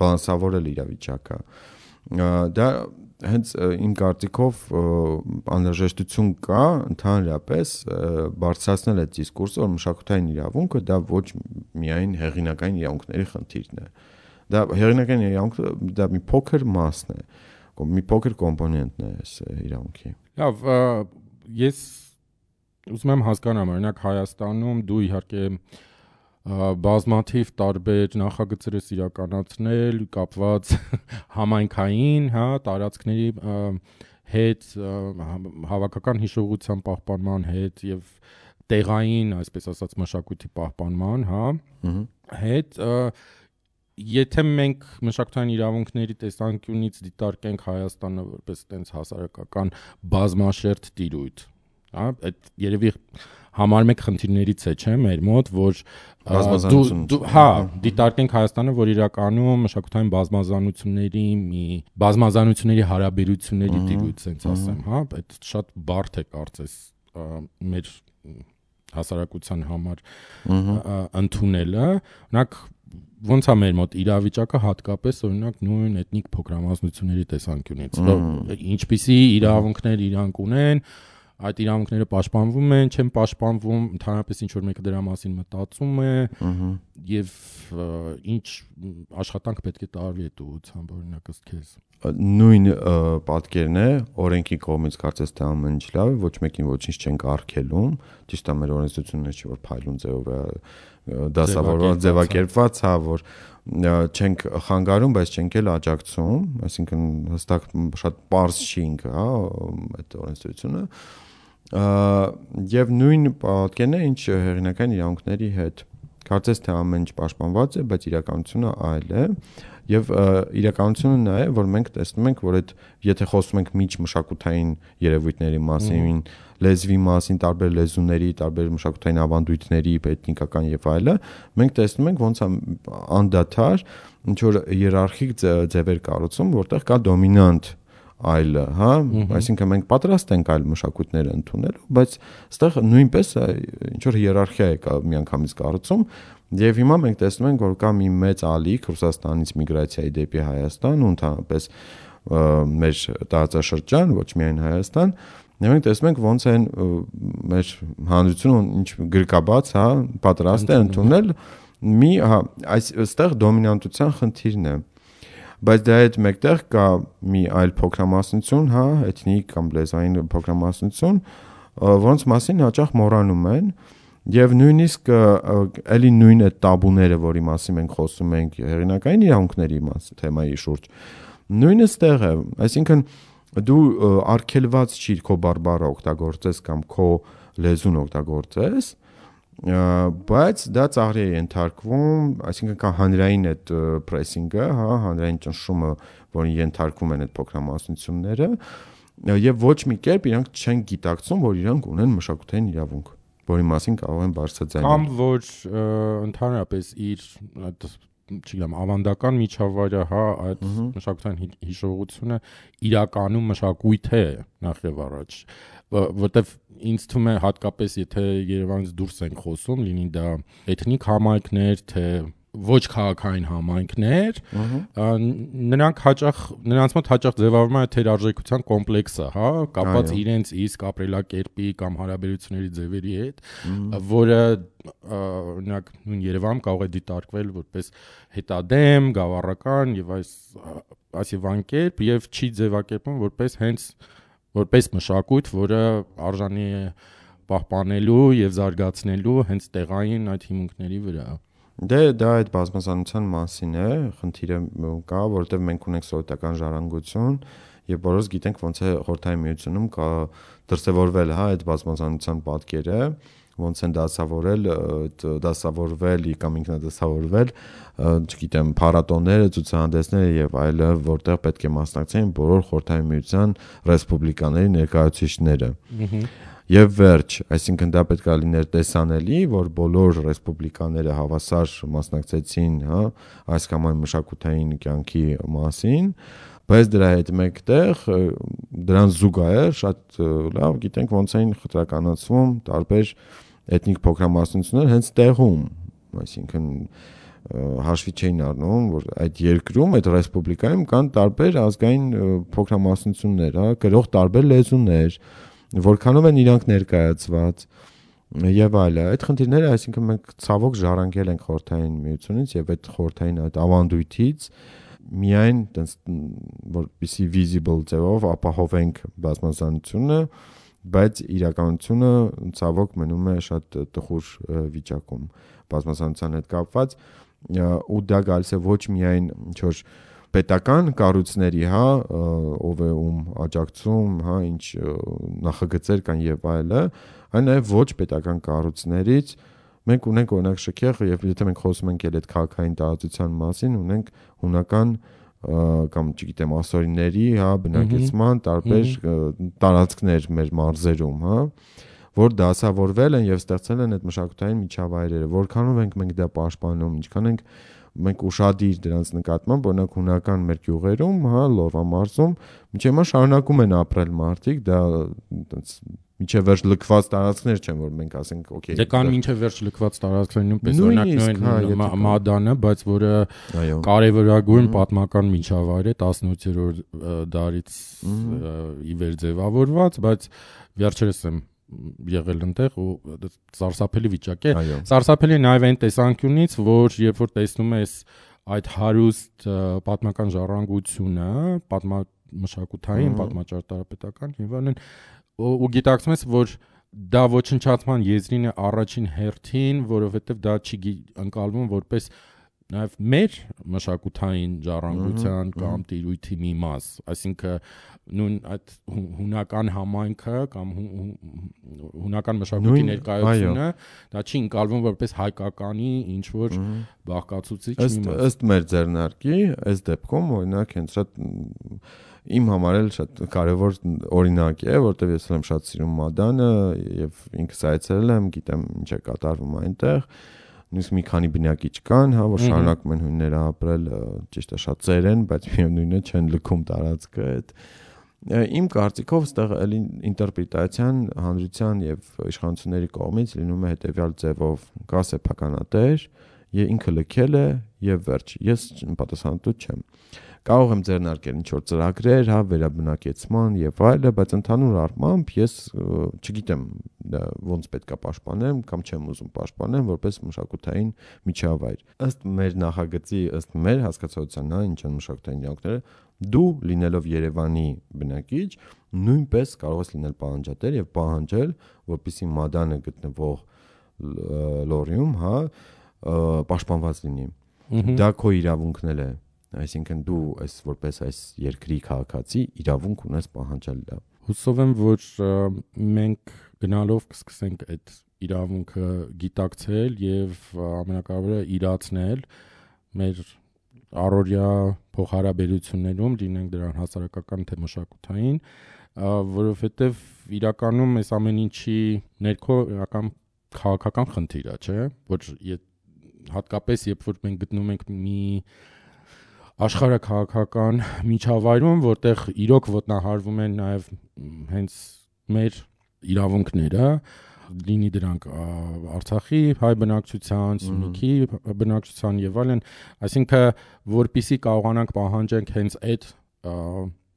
բալանսավորել իրավիճակը։ Դա հենց իմ կարծիքով անհրաժեշտություն կա ընդհանրապես բարձրացնել այդ դիսկուրսը որ մշակութային իրավունքը դա ոչ միայն հեղինակային իրավունքների խնդիրն է դա հեղինակային իրավունքը դա մի փոքր մասն է մի փոքր կոմպոնենտն է այս իրավունքի լավ ես ուզում եմ հասկանամ օրինակ Հայաստանում դու իհարկե բազմաթիվ տարբեր նախագծեր ես իրականացնել կապված համայնքային, հա, տարածքների հետ, հավաքական հիշողության պահպանման հետ եւ տեղային, այսպես ասած, մշակույթի պահպանման, հա, հետ եթե մենք մշակութային իրավունքների տեսանկյունից դիտարկենք Հայաստանը որպես այդպես հասարակական բազմաշերտ տիրույթ, հա, այդ երևի համար մեկ խնդիրներից է, չէ՞, մեր մոտ, որ հա, դիտարկենք Հայաստանը, որ իրականում մշակութային բազմազանությունների հարաբերությունների տիրույթ, ասենց ասեմ, հա, այդ շատ բարդ է կարծես մեր հասարակության համար ընդունելը, օրինակ ոնց է մեր մոտ իրավիճակը հատկապես օրինակ նույն էթնիկ փոքրամասնությունների տեսանկյունից, ինչպիսի իրավունքներ իրանք ունեն, այդ իրավունքները պաշտպանվում են, չեն պաշտպանվում, ընդհանրապես ինչ որ մեկը դրա մասին մտածում է, եւ ինչ աշխատանք պետք է տարվի այդ ուղղությամբ, օրինակ ըստ քեզ։ Նույն պատկերն է, օրենքի կողմից կարծես թե ամեն ինչ լավ է, ոչ մեկին ոչինչ չեն կարգելում, ճիշտ է մեր օրենսդրությունները չի որ փայլուն ձևով է դասավորված, ձևակերպված, հա, որ չենք խանգարում, բայց չենք էլ աջակցում, այսինքն հստակ շատ պարզ չի ինքը, հա, այդ օրենսդրությունը, եւ նույն պատկերն է, ինչ հեղինակային իրավունքների հետ։ Կարծես թե ամեն ինչ պաշտպանված է, բայց իրականությունը այլ է, եւ իրականությունը նա է, որ մենք տեսնում ենք, որ այդ եթե խոսում ենք միջմշակութային երևույթների մասին, լեզվի մասին, տարբեր լեզուների, տարբեր մշակութային ավանդույթների, էթնիկական եւ այլը, մենք տեսնում ենք ոնց է անդադար ինչ որ հիերարխիկ ձևեր կառուցում, որտեղ կա դոմինանտ այլը, հա, այսինքն մենք պատրաստ ենք այլ մշակույթներ ընդունելու, բայց այստեղ նույնպես ինչ որ հիերարխիա է միանգամից կառուցում, եւ հիմա մենք տեսնում ենք, որ կա մի մեծ ալիք Ռուսաստանից միգրացիայի դեպի Հայաստան, ու ընդհանրապես մեր տարածաշրջան, ոչ միայն Հայաստան, եւ մենք տեսնում ենք ոնց են մեր հանրությունը ինչ գրկաբաց, հա, պատրաստ է ընդունել մի, հա, այստեղ դոմինանտության խնդիրն է։ Բայց դրա հետ մեկտեղ կա մի այլ փոքրամասնություն, հա, էթնիկ կամ լեզվային փոքրամասնություն, որոնց մասին հաճախ մոռանում են, եւ նույնիսկ էլի նույն այդ տաբուները, որի մասին մենք խոսում ենք հեղինակային իրավունքների թեմայի շուրջ, նույնը ստեղ է, այսինքն դու արգելված չի քո բարբառը օգտագործես կամ քո լեզուն օգտագործես, բայց դա ծաղրի է ենթարկվում, այսինքն կա հանրային այդ պրեսինգը, հա, հանրային ճնշումը, որին ենթարկվում են այդ փոքրամասնությունները, եւ ոչ մի կերպ իրանք չեն գիտակցում, որ իրանք ունեն մշակութային իրավունք, որի մասին կարող են բարձրաձայնել։ Կամ որ ընդհանրապես իր չգիտեմ, ավանդական միջավայրը, հա, այդ մշակութային հիշողությունը իրականում մշակույթ է նախ եւ առաջ, որտեվ ինձ թվում է հատկապես եթե Երևանից դուրս ենք խոսում, լինի դա էթնիկ համայնքներ, թե ոչ քաղաքային համայնքներ, նրանց մոտ հաճախ ձևավորվում է թերարժեքության կոմպլեքսը, հա, կապված իրենց իսկ ապրելակերպի կամ հարաբերությունների ձևերի հետ, որը օրինակ նույն Երևանում կարող է դիտարկվել որպես հետադեմ, գավառական եւ այս եւ այն կերպ եւ չի ձևակերպվում որպես հենց որպես մշակույթ, որը արժանի է պահպանելու եւ զարգացնելու հենց տեղային այդ հիմունքների վրա։ Դե դա այդ բազմազանության մասին է, խնդիրը կա, որովհետև մենք ունենք սովետական ժառանգություն եւ բոլորս գիտենք ոնց է Խորհրդային Միությունում կա դրսևորվել, հա, այդ բազմազանության պատկերը, ոնց են դասավորվել կամ ինքնադասավորվել, չգիտեմ, փառատոները, ցուցահանդեսները եւ այլը, որտեղ պետք է մասնակցեն բոլոր Խորհրդային Միության ռեսպուբլիկաների ներկայացուցիչները։ Եվ վերջ, այսինքն դա պետք է լիներ տեսանելի, որ բոլոր ռեսպուբլիկաները հավասար մասնակցեցին, հա, այս կամ այն մշակութային կյանքի մասին, բայց դրա հետ մեկտեղ դրան զուգահեռ շատ լավ գիտենք ոնց էին խտրականացվում տարբեր էթնիկ փոքրամասնություններ հենց տեղում, այսինքն հաշվի չէին առնում, որ այդ երկրում, այդ ռեսպուբլիկայում կան տարբեր ազգային փոքրամասնություններ, հա, գրող տարբեր լեզուներ, որքանով են իրանք ներկայացված եւ այլը։ Այդ խնդիրները, այսինքն մենք ցավոք ժառանգել ենք Խորհրդային Միությունից եւ այդ խորհրդային այդ ավանդույթից միայն տենց որպեսի visible ձևով ապահովենք բազմազանությունը, բայց իրականությունը ցավոք մնում է շատ տխուր վիճակում բազմազանության հետ կապված ու դա գալիս է ոչ միայն ինչ որ պետական կառույցների, հա, ով է ում աջակցում, հա, ինչ նախագծեր կան եւ այլը, այլ նաեւ ոչ պետական կառույցներից մենք ունենք օրինակ շքեղ եւ եթե մենք խոսում ենք այդ քաղաքային տարածության մասին, ունենք հունական կամ չգիտեմ ասորիների, հա, բնակեցման տարբեր տարածքներ մեր մարզերում, հա, որ դասավորվել են եւ ստեղծել են այդ մշակութային միջավայրերը, որքանով ենք մենք դա պաշտպանում, ինչքան ենք մենք ուշադիր դրանց նկատմամբ, օրինակ հունական մեր գյուղերում, հա, Լոռվա մարզում, մինչև հիմա շարունակում են ապրել մարդիկ, դա մինչև վերջ լքված տարածքներ չեն, որ մենք ասենք, օքեյ։ Դե կան մինչև վերջ լքված տարածքներ նույնպես, օրինակ նույն Մադանը, բայց որը կարևորագույն պատմական միջավայր է 18-րդ դարից ի վեր ձևավորված, բայց վերջերս եմ եղել այնտեղ ու սարսափելի վիճակ է։ Սարսափելի նաև այն տեսանկյունից, որ երբ որ տեսնում ես այդ հարուստ պատմական ժառանգությունը, պատմամշակութային, պատմաճարտարապետական եւ այլն, ու գիտակցում ես, որ դա ոչնչացման եզրին է առաջին հերթին, որովհետեւ դա չի ընկալվում որպես նաև մեր մշակութային ժառանգության կամ տիրույթի մի մաս, այսինքն նույն այդ հունական համայնքը կամ հունական մշակույթի ներկայությունը դա չի ընկալվում որպես հայկականի ինչ որ բաղկացուցիչ մի մաս։ Ըստ մեր ձեռնարկի, այս դեպքում օրինակ հենց շատ իմ համար էլ շատ կարևոր օրինակ է, որտեղ ես եմ շատ սիրում Մադանը եւ ինքս այցելել եմ, գիտեմ ինչ է կատարվում այնտեղ։ Նույնիսկ մի քանի բնակիչ կան, հա, որ շարունակում են հույները ապրել, ճիշտ է, շատ ծեր են, բայց միևնույնն է չեն լքում տարածքը այդ։ Իմ կարծիքով այստեղ էլի ինտերպրետացիան հանրության եւ իշխանությունների կողմից լինում է հետեւյալ ձևով՝ կա սեփականատեր, ինքը լքել է եւ վերջ։ Ես պատասխանատու չեմ։ Կարող եմ ձեռնարկել ինչ-որ ծրագրեր, հա, վերաբնակեցման եւ այլը, բայց ընդհանուր առմամբ ես չգիտեմ ոնց պետք է պաշտպանեմ կամ չեմ ուզում պաշտպանեմ որպես մշակութային միջավայր։ Ըստ մեր նախագծի, ըստ մեր հասկացության, հա, ինչ են մշակութային իրավունքները, դու լինելով Երևանի բնակիչ, նույնպես կարող ես լինել պահանջատեր եւ պահանջել, որպեսզի Մադանը գտնվող Լոռիում, հա, պաշտպանված լինի։ Դա քո իրավունքն է։ Այսինքն դու որպես այս երկրի քաղաքացի իրավունք ունես պահանջել դա։ Հուսով եմ, որ մենք գնալով կսկսենք այդ իրավունքը գիտակցել եւ ամենակարևորը իրացնել մեր առօրյա փոխհարաբերություններում, լինենք դրան հասարակական թե մշակութային, որովհետեւ իրականում այս ամեն ինչի ներքո իրական քաղաքական խնդիր է, չէ՞, որ հատկապես երբ որ մենք գտնում ենք մի աշխարհաքաղաքական միջավայրում, որտեղ իրոք ոտնահարվում են նաև հենց մեր իրավունքները, լինի դրանք Արցախի հայ բնակչության, Սյունիքի բնակչության եւ այլն, այսինքն որpիսի կարողանանք պահանջենք հենց այդ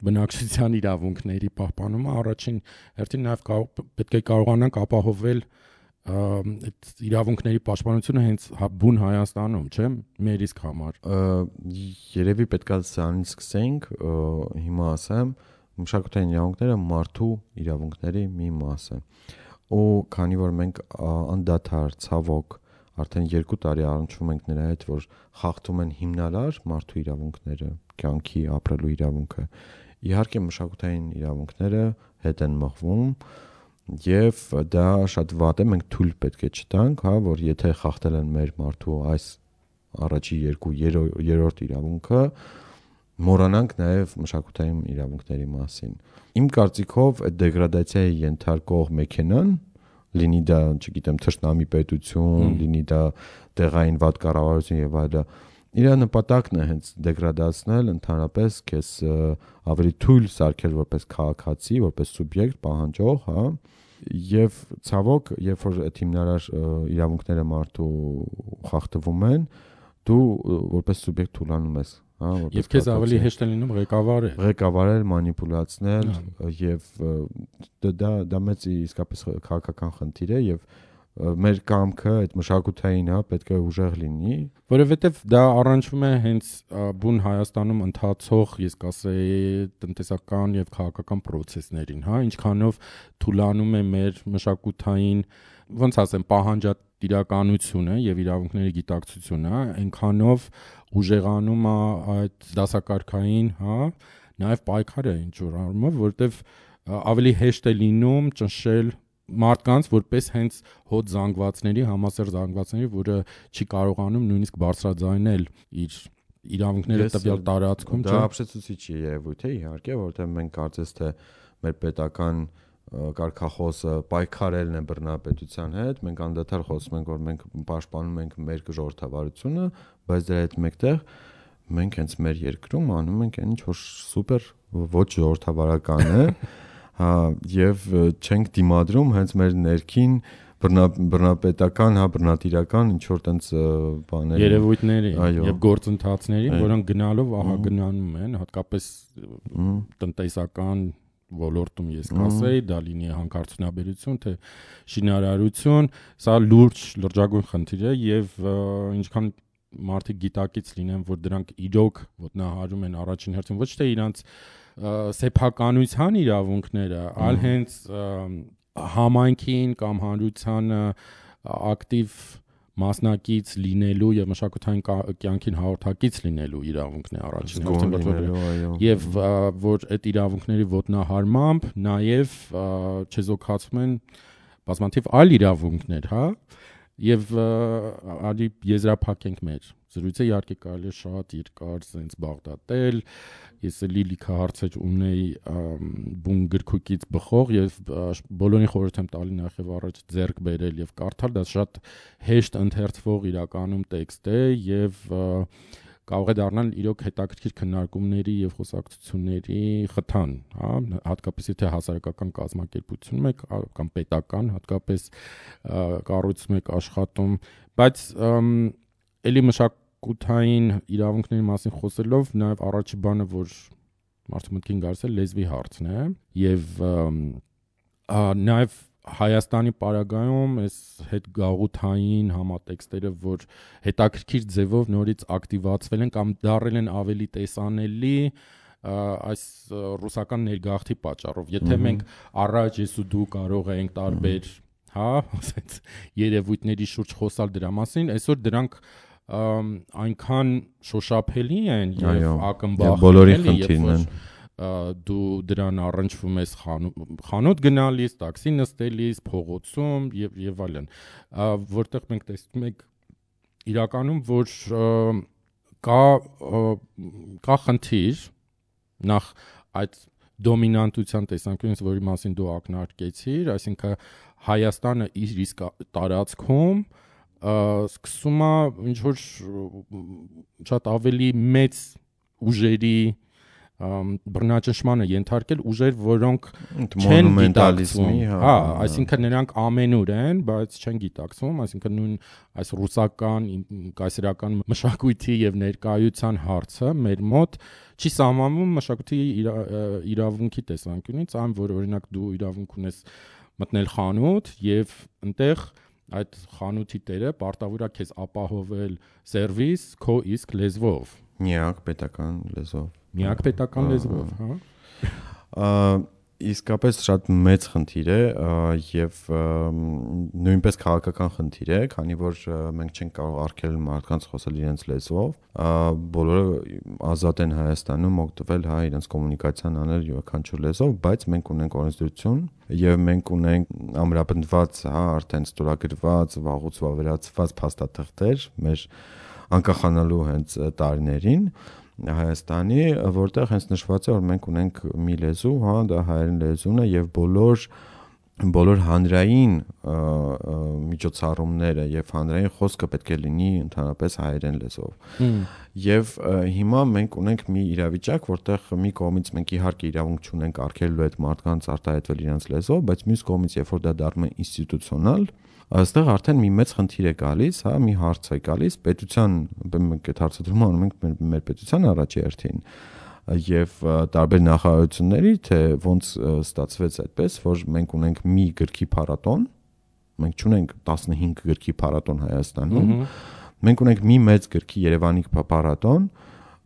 բնակչության իրավունքների պահպանումը, առաջին հերթին նաև պետք է կարողանանք ապահովել այդ իրավունքների պաշտպանությունը հենց բուն Հայաստանում, չէ՞, մեր իսկ համար։ Երևի պետք է սրանից սկսենք, հիմա ասեմ, մշակութային իրավունքները մարդու իրավունքների մի մաս է։ Ու քանի որ մենք անդադար ցավոք արդեն 2 տարի առնչվում ենք նրա հետ, որ խախտում են հիմնարար մարդու իրավունքները, կյանքի ապրելու իրավունքը, իհարկե մշակութային իրավունքները հետ են մղվում եւ դա շատ վատ է, մենք թույլ պետք է չտանք, հա, որ եթե խախտել են մեր մարդու այս առաջի 2-3-րդ իրավունքը, մոռանանք նաեւ մշակութային իրավունքների մասին։ Իմ կարծիքով այդ դեգրադացիայի ենթարկող մեքենան, լինի դա, չգիտեմ, թշնամի պետություն, լինի դա տեղային վատ կառավարություն եւ այլը, իր նպատակն է հենց դեգրադացնել ընդհանրապես քեզ ավելի թույլ սարքել որպես քաղաքացի, որպես սուբյեկտ պահանջող, հա, եւ ցավոք, երբ որ այդ հիմնարար իրավունքները մարդու խախտվում են, դու որպես սուբյեկտ թուլանում ես, հա, եւ քեզ ավելի հեշտ է լինում ղեկավարել, մանիպուլացնել եւ դա մեծ իսկապես քաղաքական խնդիր է եւ մեր կամքը այդ մշակութային, հա, պետք է ուժեղ լինի, որովհետև դա առնչվում է հենց բուն Հայաստանում ընթացող, ես կասեի, տնտեսական եւ քաղաքական process-ներին, հա, ինչքանով թուլանում է մեր մշակութային, ոնց ասեմ, պահանջատիրականությունը եւ իրավունքների գիտակցությունը, այնքանով ուժեղանում է այդ դասակարգային, հա, նաեւ պայքարը ինչ որ առումով, որովհետև ավելի հեշտ է լինում ճնշել մարդկանց որպես հենց հոտ զանգվածների, համասեր զանգվածների, որը չի կարողանում նույնիսկ բարձրաձայնել իր իրավունքները տվյալ տարածքում, դա ապշեցուցիչ է երևույթ է, իհարկե, որովհետև մենք կարծես թե մեր պետական կարգախոսը պայքարելն է բռնապետության հետ, մենք անդադար խոսում ենք, որ մենք պաշտպանում ենք մեր ժողովրդավարությունը, բայց դրա հետ մեկտեղ մենք հենց մեր երկրում անում ենք այն ինչ որ սուպեր ոչ ժողովրդավարական է, հա, եւ չենք դիմադրում հենց մեր ներքին բռնապետական, բռնատիրական ինչ որ տենց բաներ երևույթների եւ գործընթացների, որոնք գնալով ահա գնանում են, հատկապես տնտեսական ոլորտում ես կասեի, դա լինի հանքարդյունաբերություն, թե շինարարություն, սա լրջագույն խնդիր է եւ ինչքան մարդիկ գիտակից լինեն, որ դրանք իրոք ոտնահարում են առաջին հերթին ոչ թե իրանց սեփականության իրավունքները, այլ հենց համայնքին կամ հանրությանը ակտիվ մասնակից լինելու եւ մշակութային կյանքին հաղորդակից լինելու իրավունքն է առաջին հերթին, եւ որ այդ իրավունքների ոտնահարմամբ նաեւ չեզոքացվում են բազմաթիվ այլ իրավունքներ, հա, եւ արի եզրափակենք մեր զրույցը, իհարկե կարելի է շատ երկար sense բաղդատել, ես էլի լիքը հարցեր ունեի բուն գրքույկից բխող եւ բոլորին խորհուրդ եմ տալի նախ առաջ ձեռք բերել եւ կարդալ, դա շատ հեշտ ընթերցվող իրականում տեքստ է եւ կարող է դառնալ իրոք հետաքրքիր քննարկումների եւ խոսակցությունների խթան, հա, հատկապես եթե հասարակական կազմակերպություն եք կամ պետական, հատկապես կառույցում եք աշխատում, բայց էլի մշակութային իրավունքների մասին խոսելով նաեւ առաջի բանը, որ մարդու մտքին գալիս է, լեզվի հարցն է եւ նաեւ Հայաստանի պարագայում այս հետգաղութային համատեքստերը, որ հետաքրքիր ձևով նորից ակտիվացվել են կամ դառել են ավելի տեսանելի այս ռուսական ներգաղթի պատճառով, եթե մենք առաջ ես ու դու կարող ենք տարբեր, հա, ասած երևույթների շուրջ խոսալ դրա մասին, այսօր դրանք այնքան շոշափելի են եւ ակնբախ են, դու դրան առնչվում ես խանութ գնալիս, տաքսի նստելիս, փողոցում եւ այլն, որտեղ մենք տեսնում ենք իրականում, որ կա խնդիր նախ այդ դոմինանտության տեսանկյունից, որի մասին դու ակնարկեցիր, այսինքն Հայաստանը իր իսկ տարածքում սկսում է ինչ որ շատ ավելի մեծ ուժերի բռնաճնշմանը ենթարկել ուժեր, որոնք չեն գիտակցվում, հա, այսինքն նրանք ամենուր են, բայց չեն գիտակցվում, այսինքն նույն այս ռուսական կայսերական մշակույթի եւ ներկայության հարցը մեր մոտ չի սահմանվում մշակույթի իրավունքի տեսանկյունից, այն որ օրինակ դու իրավունք ունես մտնել խանութ եւ այնտեղ այդ խանութի տերը պարտավոր է քեզ ապահովել սերվիս քո իսկ լեզվով, միակ պետական լեզվով, հա։ Իսկապես շատ մեծ խնդիր է եւ նույնպես քաղաքական խնդիր է, քանի որ մենք չենք կարող արգելել մարդկանց խոսել իրենց լեզվով, բոլորը ազատ են Հայաստանում օգտվել հա իրենց կոմունիկացիան անել յուրաքանչյուր լեզվով, բայց մենք ունենք օրենսդրություն եւ մենք ունենք ամրապնդված, հա, արդեն ստորագրված, վաղուց վավերացված փաստաթղթեր մեր անկախանալու հենց տարիներին Հայաստանի, որտեղ հենց նշված է, որ մենք ունենք մի լեզու, հա, դա հայերեն լեզուն է եւ բոլոր հանրային միջոցառումները եւ հանրային խոսքը պետք է լինի ընդհանրապես հայերեն լեզվով։ Եվ հիմա մենք ունենք մի իրավիճակ, որտեղ մի կողմից մենք իհարկե իրավունք չունենք արգելելու այդ մարդկանց արտահայտվել իրենց լեզվով, բայց մյուս կողմից երբ որ դա դառնում է ինստիտուցիոնալ, այստեղ արդեն մի մեծ խնդիր է գալիս, հա, մի հարց է գալիս, պետության, մենք այդ հարցադրումը անում ենք մեր պետության առաջի հերթին եւ տարբեր նախարարությունների, թե ոնց ստացվեց այդպես, որ մենք ունենք մի գրքի փառատոն, մենք չունենք 15 գրքի փառատոն Հայաստանում, մենք ունենք մի մեծ գրքի Երևանի փառատոն,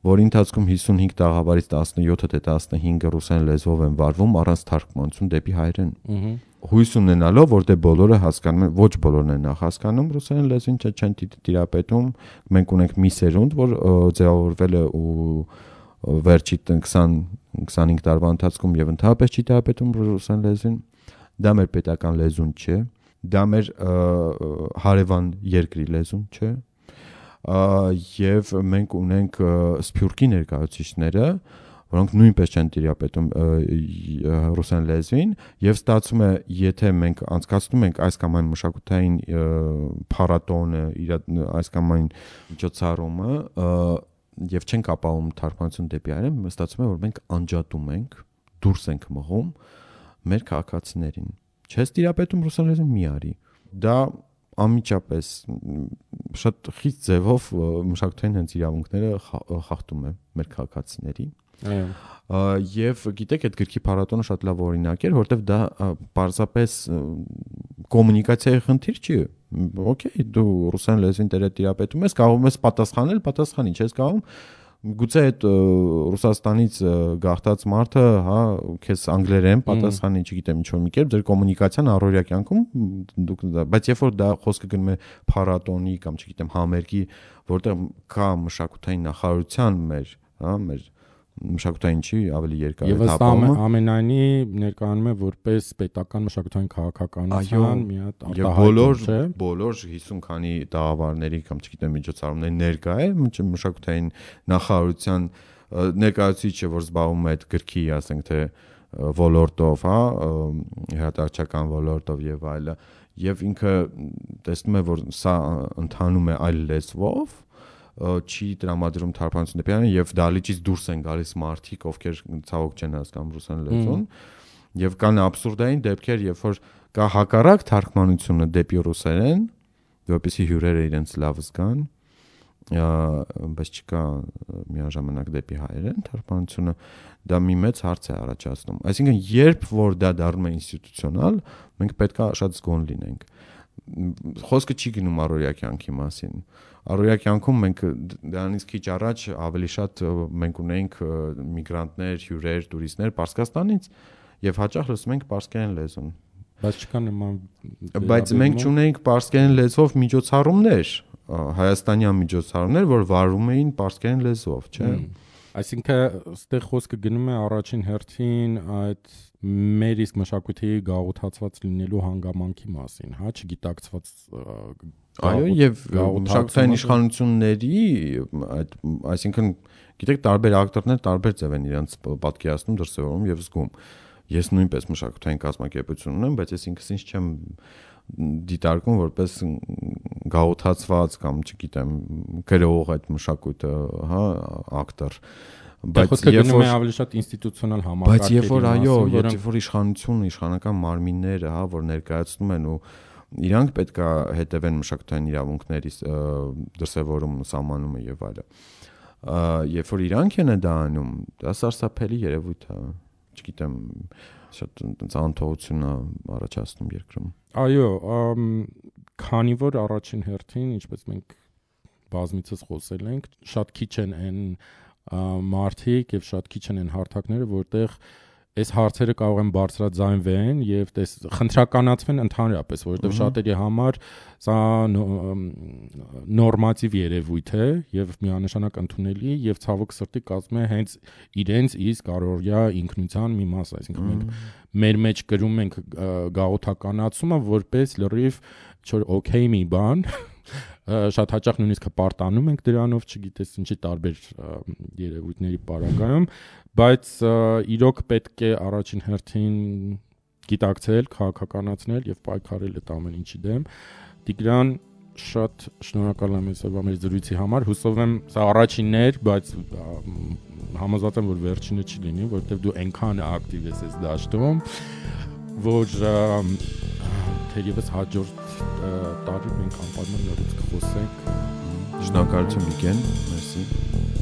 որի ընթացքում 55 տաղավարից 17-ը թե 15-ը ռուսերեն լեզվով են վարվում առանց թարգմանություն դեպի հայերեն։ Հույս ունենալով, որտեղ բոլորը հասկանում են, ոչ բոլորն են հասկանում ռուսերեն լեզվին, չեն տիրապետում, մենք ունենք մի սերունդ, որ ձևավորվել է ու վերջի 20-25 տարվա ընթացքում եւ ընդհանրապես չի տիրապետում ռուսերեն լեզվին, դա մեր պետական լեզուն չէ, դա մեր հարևան երկրի լեզուն չէ, եւ մենք ունենք սփյուռքի ներկայացուցիչները, որոնք նույնպես չեն տիրապետում ռուսերեն լեզվին, եւ ստացվում է, եթե մենք անցկացնում ենք այս կամ այն մշակութային փառատոնը, այս կամ այն միջոցառումը, եւ չենք ապահովում թարգմանություն դեպի հայերեն, ստացվում է, որ մենք անջատում ենք, դուրս ենք մղում մեր քաղաքացիներին։ Չես տիրապետում ռուսերեն լեզուն, մի արի։ Դա անմիջապես շատ խիստ ձևով մշակութային հենց իրավունքները խախտում է մեր քաղաքացիների։ Եվ գիտեք, այդ գրքի փառատոնը շատ լավ օրինակ էր, որովհետև դա պարզապես կոմունիկացիայի խնդիր չի։ Okay, դու ռուսերեն լեզվին տիրապետում ես, կարող ես պատասխանել, պատասխանի, չես կարող գուցե այդ Ռուսաստանից գաղթած մարդը, հա, քեզ անգլերեն պատասխանի, չգիտեմ ինչ-որ մի կերպ, ձեր կոմունիկացիան առօրյա կյանքում դուք, բայց երբ որ դա խոսքը գնում է փառատոնի կամ չգիտեմ համերգի, որտեղ կա մշակութային նախարարության մեր, հա, մեր մշակութային չի ավելի երկար է ապահովումը։ Եվ ամենայնի ներկայանում է որպես պետական մշակութային քաղաքականության մի հատ արտահայտում, եւ բոլոր 50 քանի տաղավարների կամ չգիտեմ միջոցառումների ներկա է մշակութային նախարարության ներկայացուցիչը, որ զբաղվում է այդ գրքի, ասենք թե ոլորտով, հա, հրատարակչական ոլորտով եւ այլը, եւ ինքը տեսնում է, որ սա ընթանում է այլ լեզվով, չի տրամադրում թարգմանություն դեպի հայերեն եւ դալիճից դուրս են գալիս մարդիկ, ովքեր ցավոք չեն հասկանում ռուսերեն լեզուն, եւ կան աբսուրդային դեպքեր, երբ որ կա հակառակ թարգմանությունը դեպի ռուսերեն, որպեսզի հյուրերը իրենց լավ զգան, բայց չկա միաժամանակ դեպի հայերեն թարգմանությունը, դա մի մեծ հարց է առաջացնում։ Այսինքն, երբ որ դա դառնում է ինստիտուցիոնալ, մենք պետք է շատ զգոն լինենք։ Խոսքը չի գնում առօրյա կյանքի մասին։ Առօրյա կյանքում մենք դրանից քիչ առաջ ավելի շատ մենք ունեինք միգրանտներ, հյուրեր, տուրիստներ Պարսկաստանից եւ հաճախ լսում ենք պարսկերեն լեզուն։ Բայց չկա նման։ Բայց մենք չունեինք պարսկերեն լեզվով միջոցառումներ, հայաստանյան միջոցառումներ, որ վարում էին պարսկերեն լեզվով, չէ՞։ Այսինքն, այստեղ խոսքը գնում է առաջին հերթին այդ մեր իսկ մշակույթի գաղութացված լինելու հանգամանքի մասին, հա, չգիտակցված այո, եւ մշակութային իշխանությունների, այսինքն, գիտեք, տարբեր ակտորներ տարբեր ձև են իրենց պատկերացնում, դրսևորում եւ զգում։ Ես նույնպես մշակութային կազմակերպություն ունեմ, բայց ես ինքս ինձ չեմ դիտարկում որպես գաղութացված կամ չգիտեմ գրող այդ մշակույթը, հա, ակտոր, բայց երբ որ ավելի շատ ինստիտուցիոնալ համակարգերի, բայց երբ որ այո, երբ որ իշխանությունը, իշխանական մարմինները, հա, որ ներկայացնում են ու իրանք պետք է հետևեն մշակութային իրավունքների դրսևորումը, սահմանումը եւ այլը, երբ որ իրանք են դա անում, դա սարսափելի երևույթ է, չգիտեմ, շատ անթողություն է առաջացնում երկրում։ Այո, քանի որ առաջին հերթին, ինչպես մենք բազմիցս խոսել ենք, շատ քիչ են այն մարդիկ եւ շատ քիչ են այն հարթակները, որտեղ այս հարցերը կարող են բարձրաձայնվեն եւ խնդրականացվեն ընդհանրապես, որովհետեւ շատերի համար սա նորմատիվ երևույթ է եւ միանշանակ ընդունելի եւ ցավոք սրտի կազմում է հենց իրենց իսկ առօրյա ինքնության մի մաս, այսինքն մենք մեր մեջ գրում ենք գաղութականացումը որպես լրիվ չոր օքեյ մի բան, շատ հաճախ նույնիսկ հպարտանում ենք դրանով, չգիտես ինչի տարբեր երևույթների պարագայում, բայց իրոք պետք է առաջին հերթին գիտակցել, քաղաքականացնել եւ պայքարել այդ ամեն ինչի դեմ։ Տիգրան, շատ շնորհակալ եմ այսօրվա մեր զրույցի համար, հուսով եմ սա առաջինն էր, բայց համոզված եմ, որ վերջինը չի լինի, որովհետեւ դու այնքան ակտիվ ես այս դաշտում, որ թերևս հաջորդ տարի մենք անպայման նորից կխոսենք։ Շնորհակալություն Վիգեն, մերսի։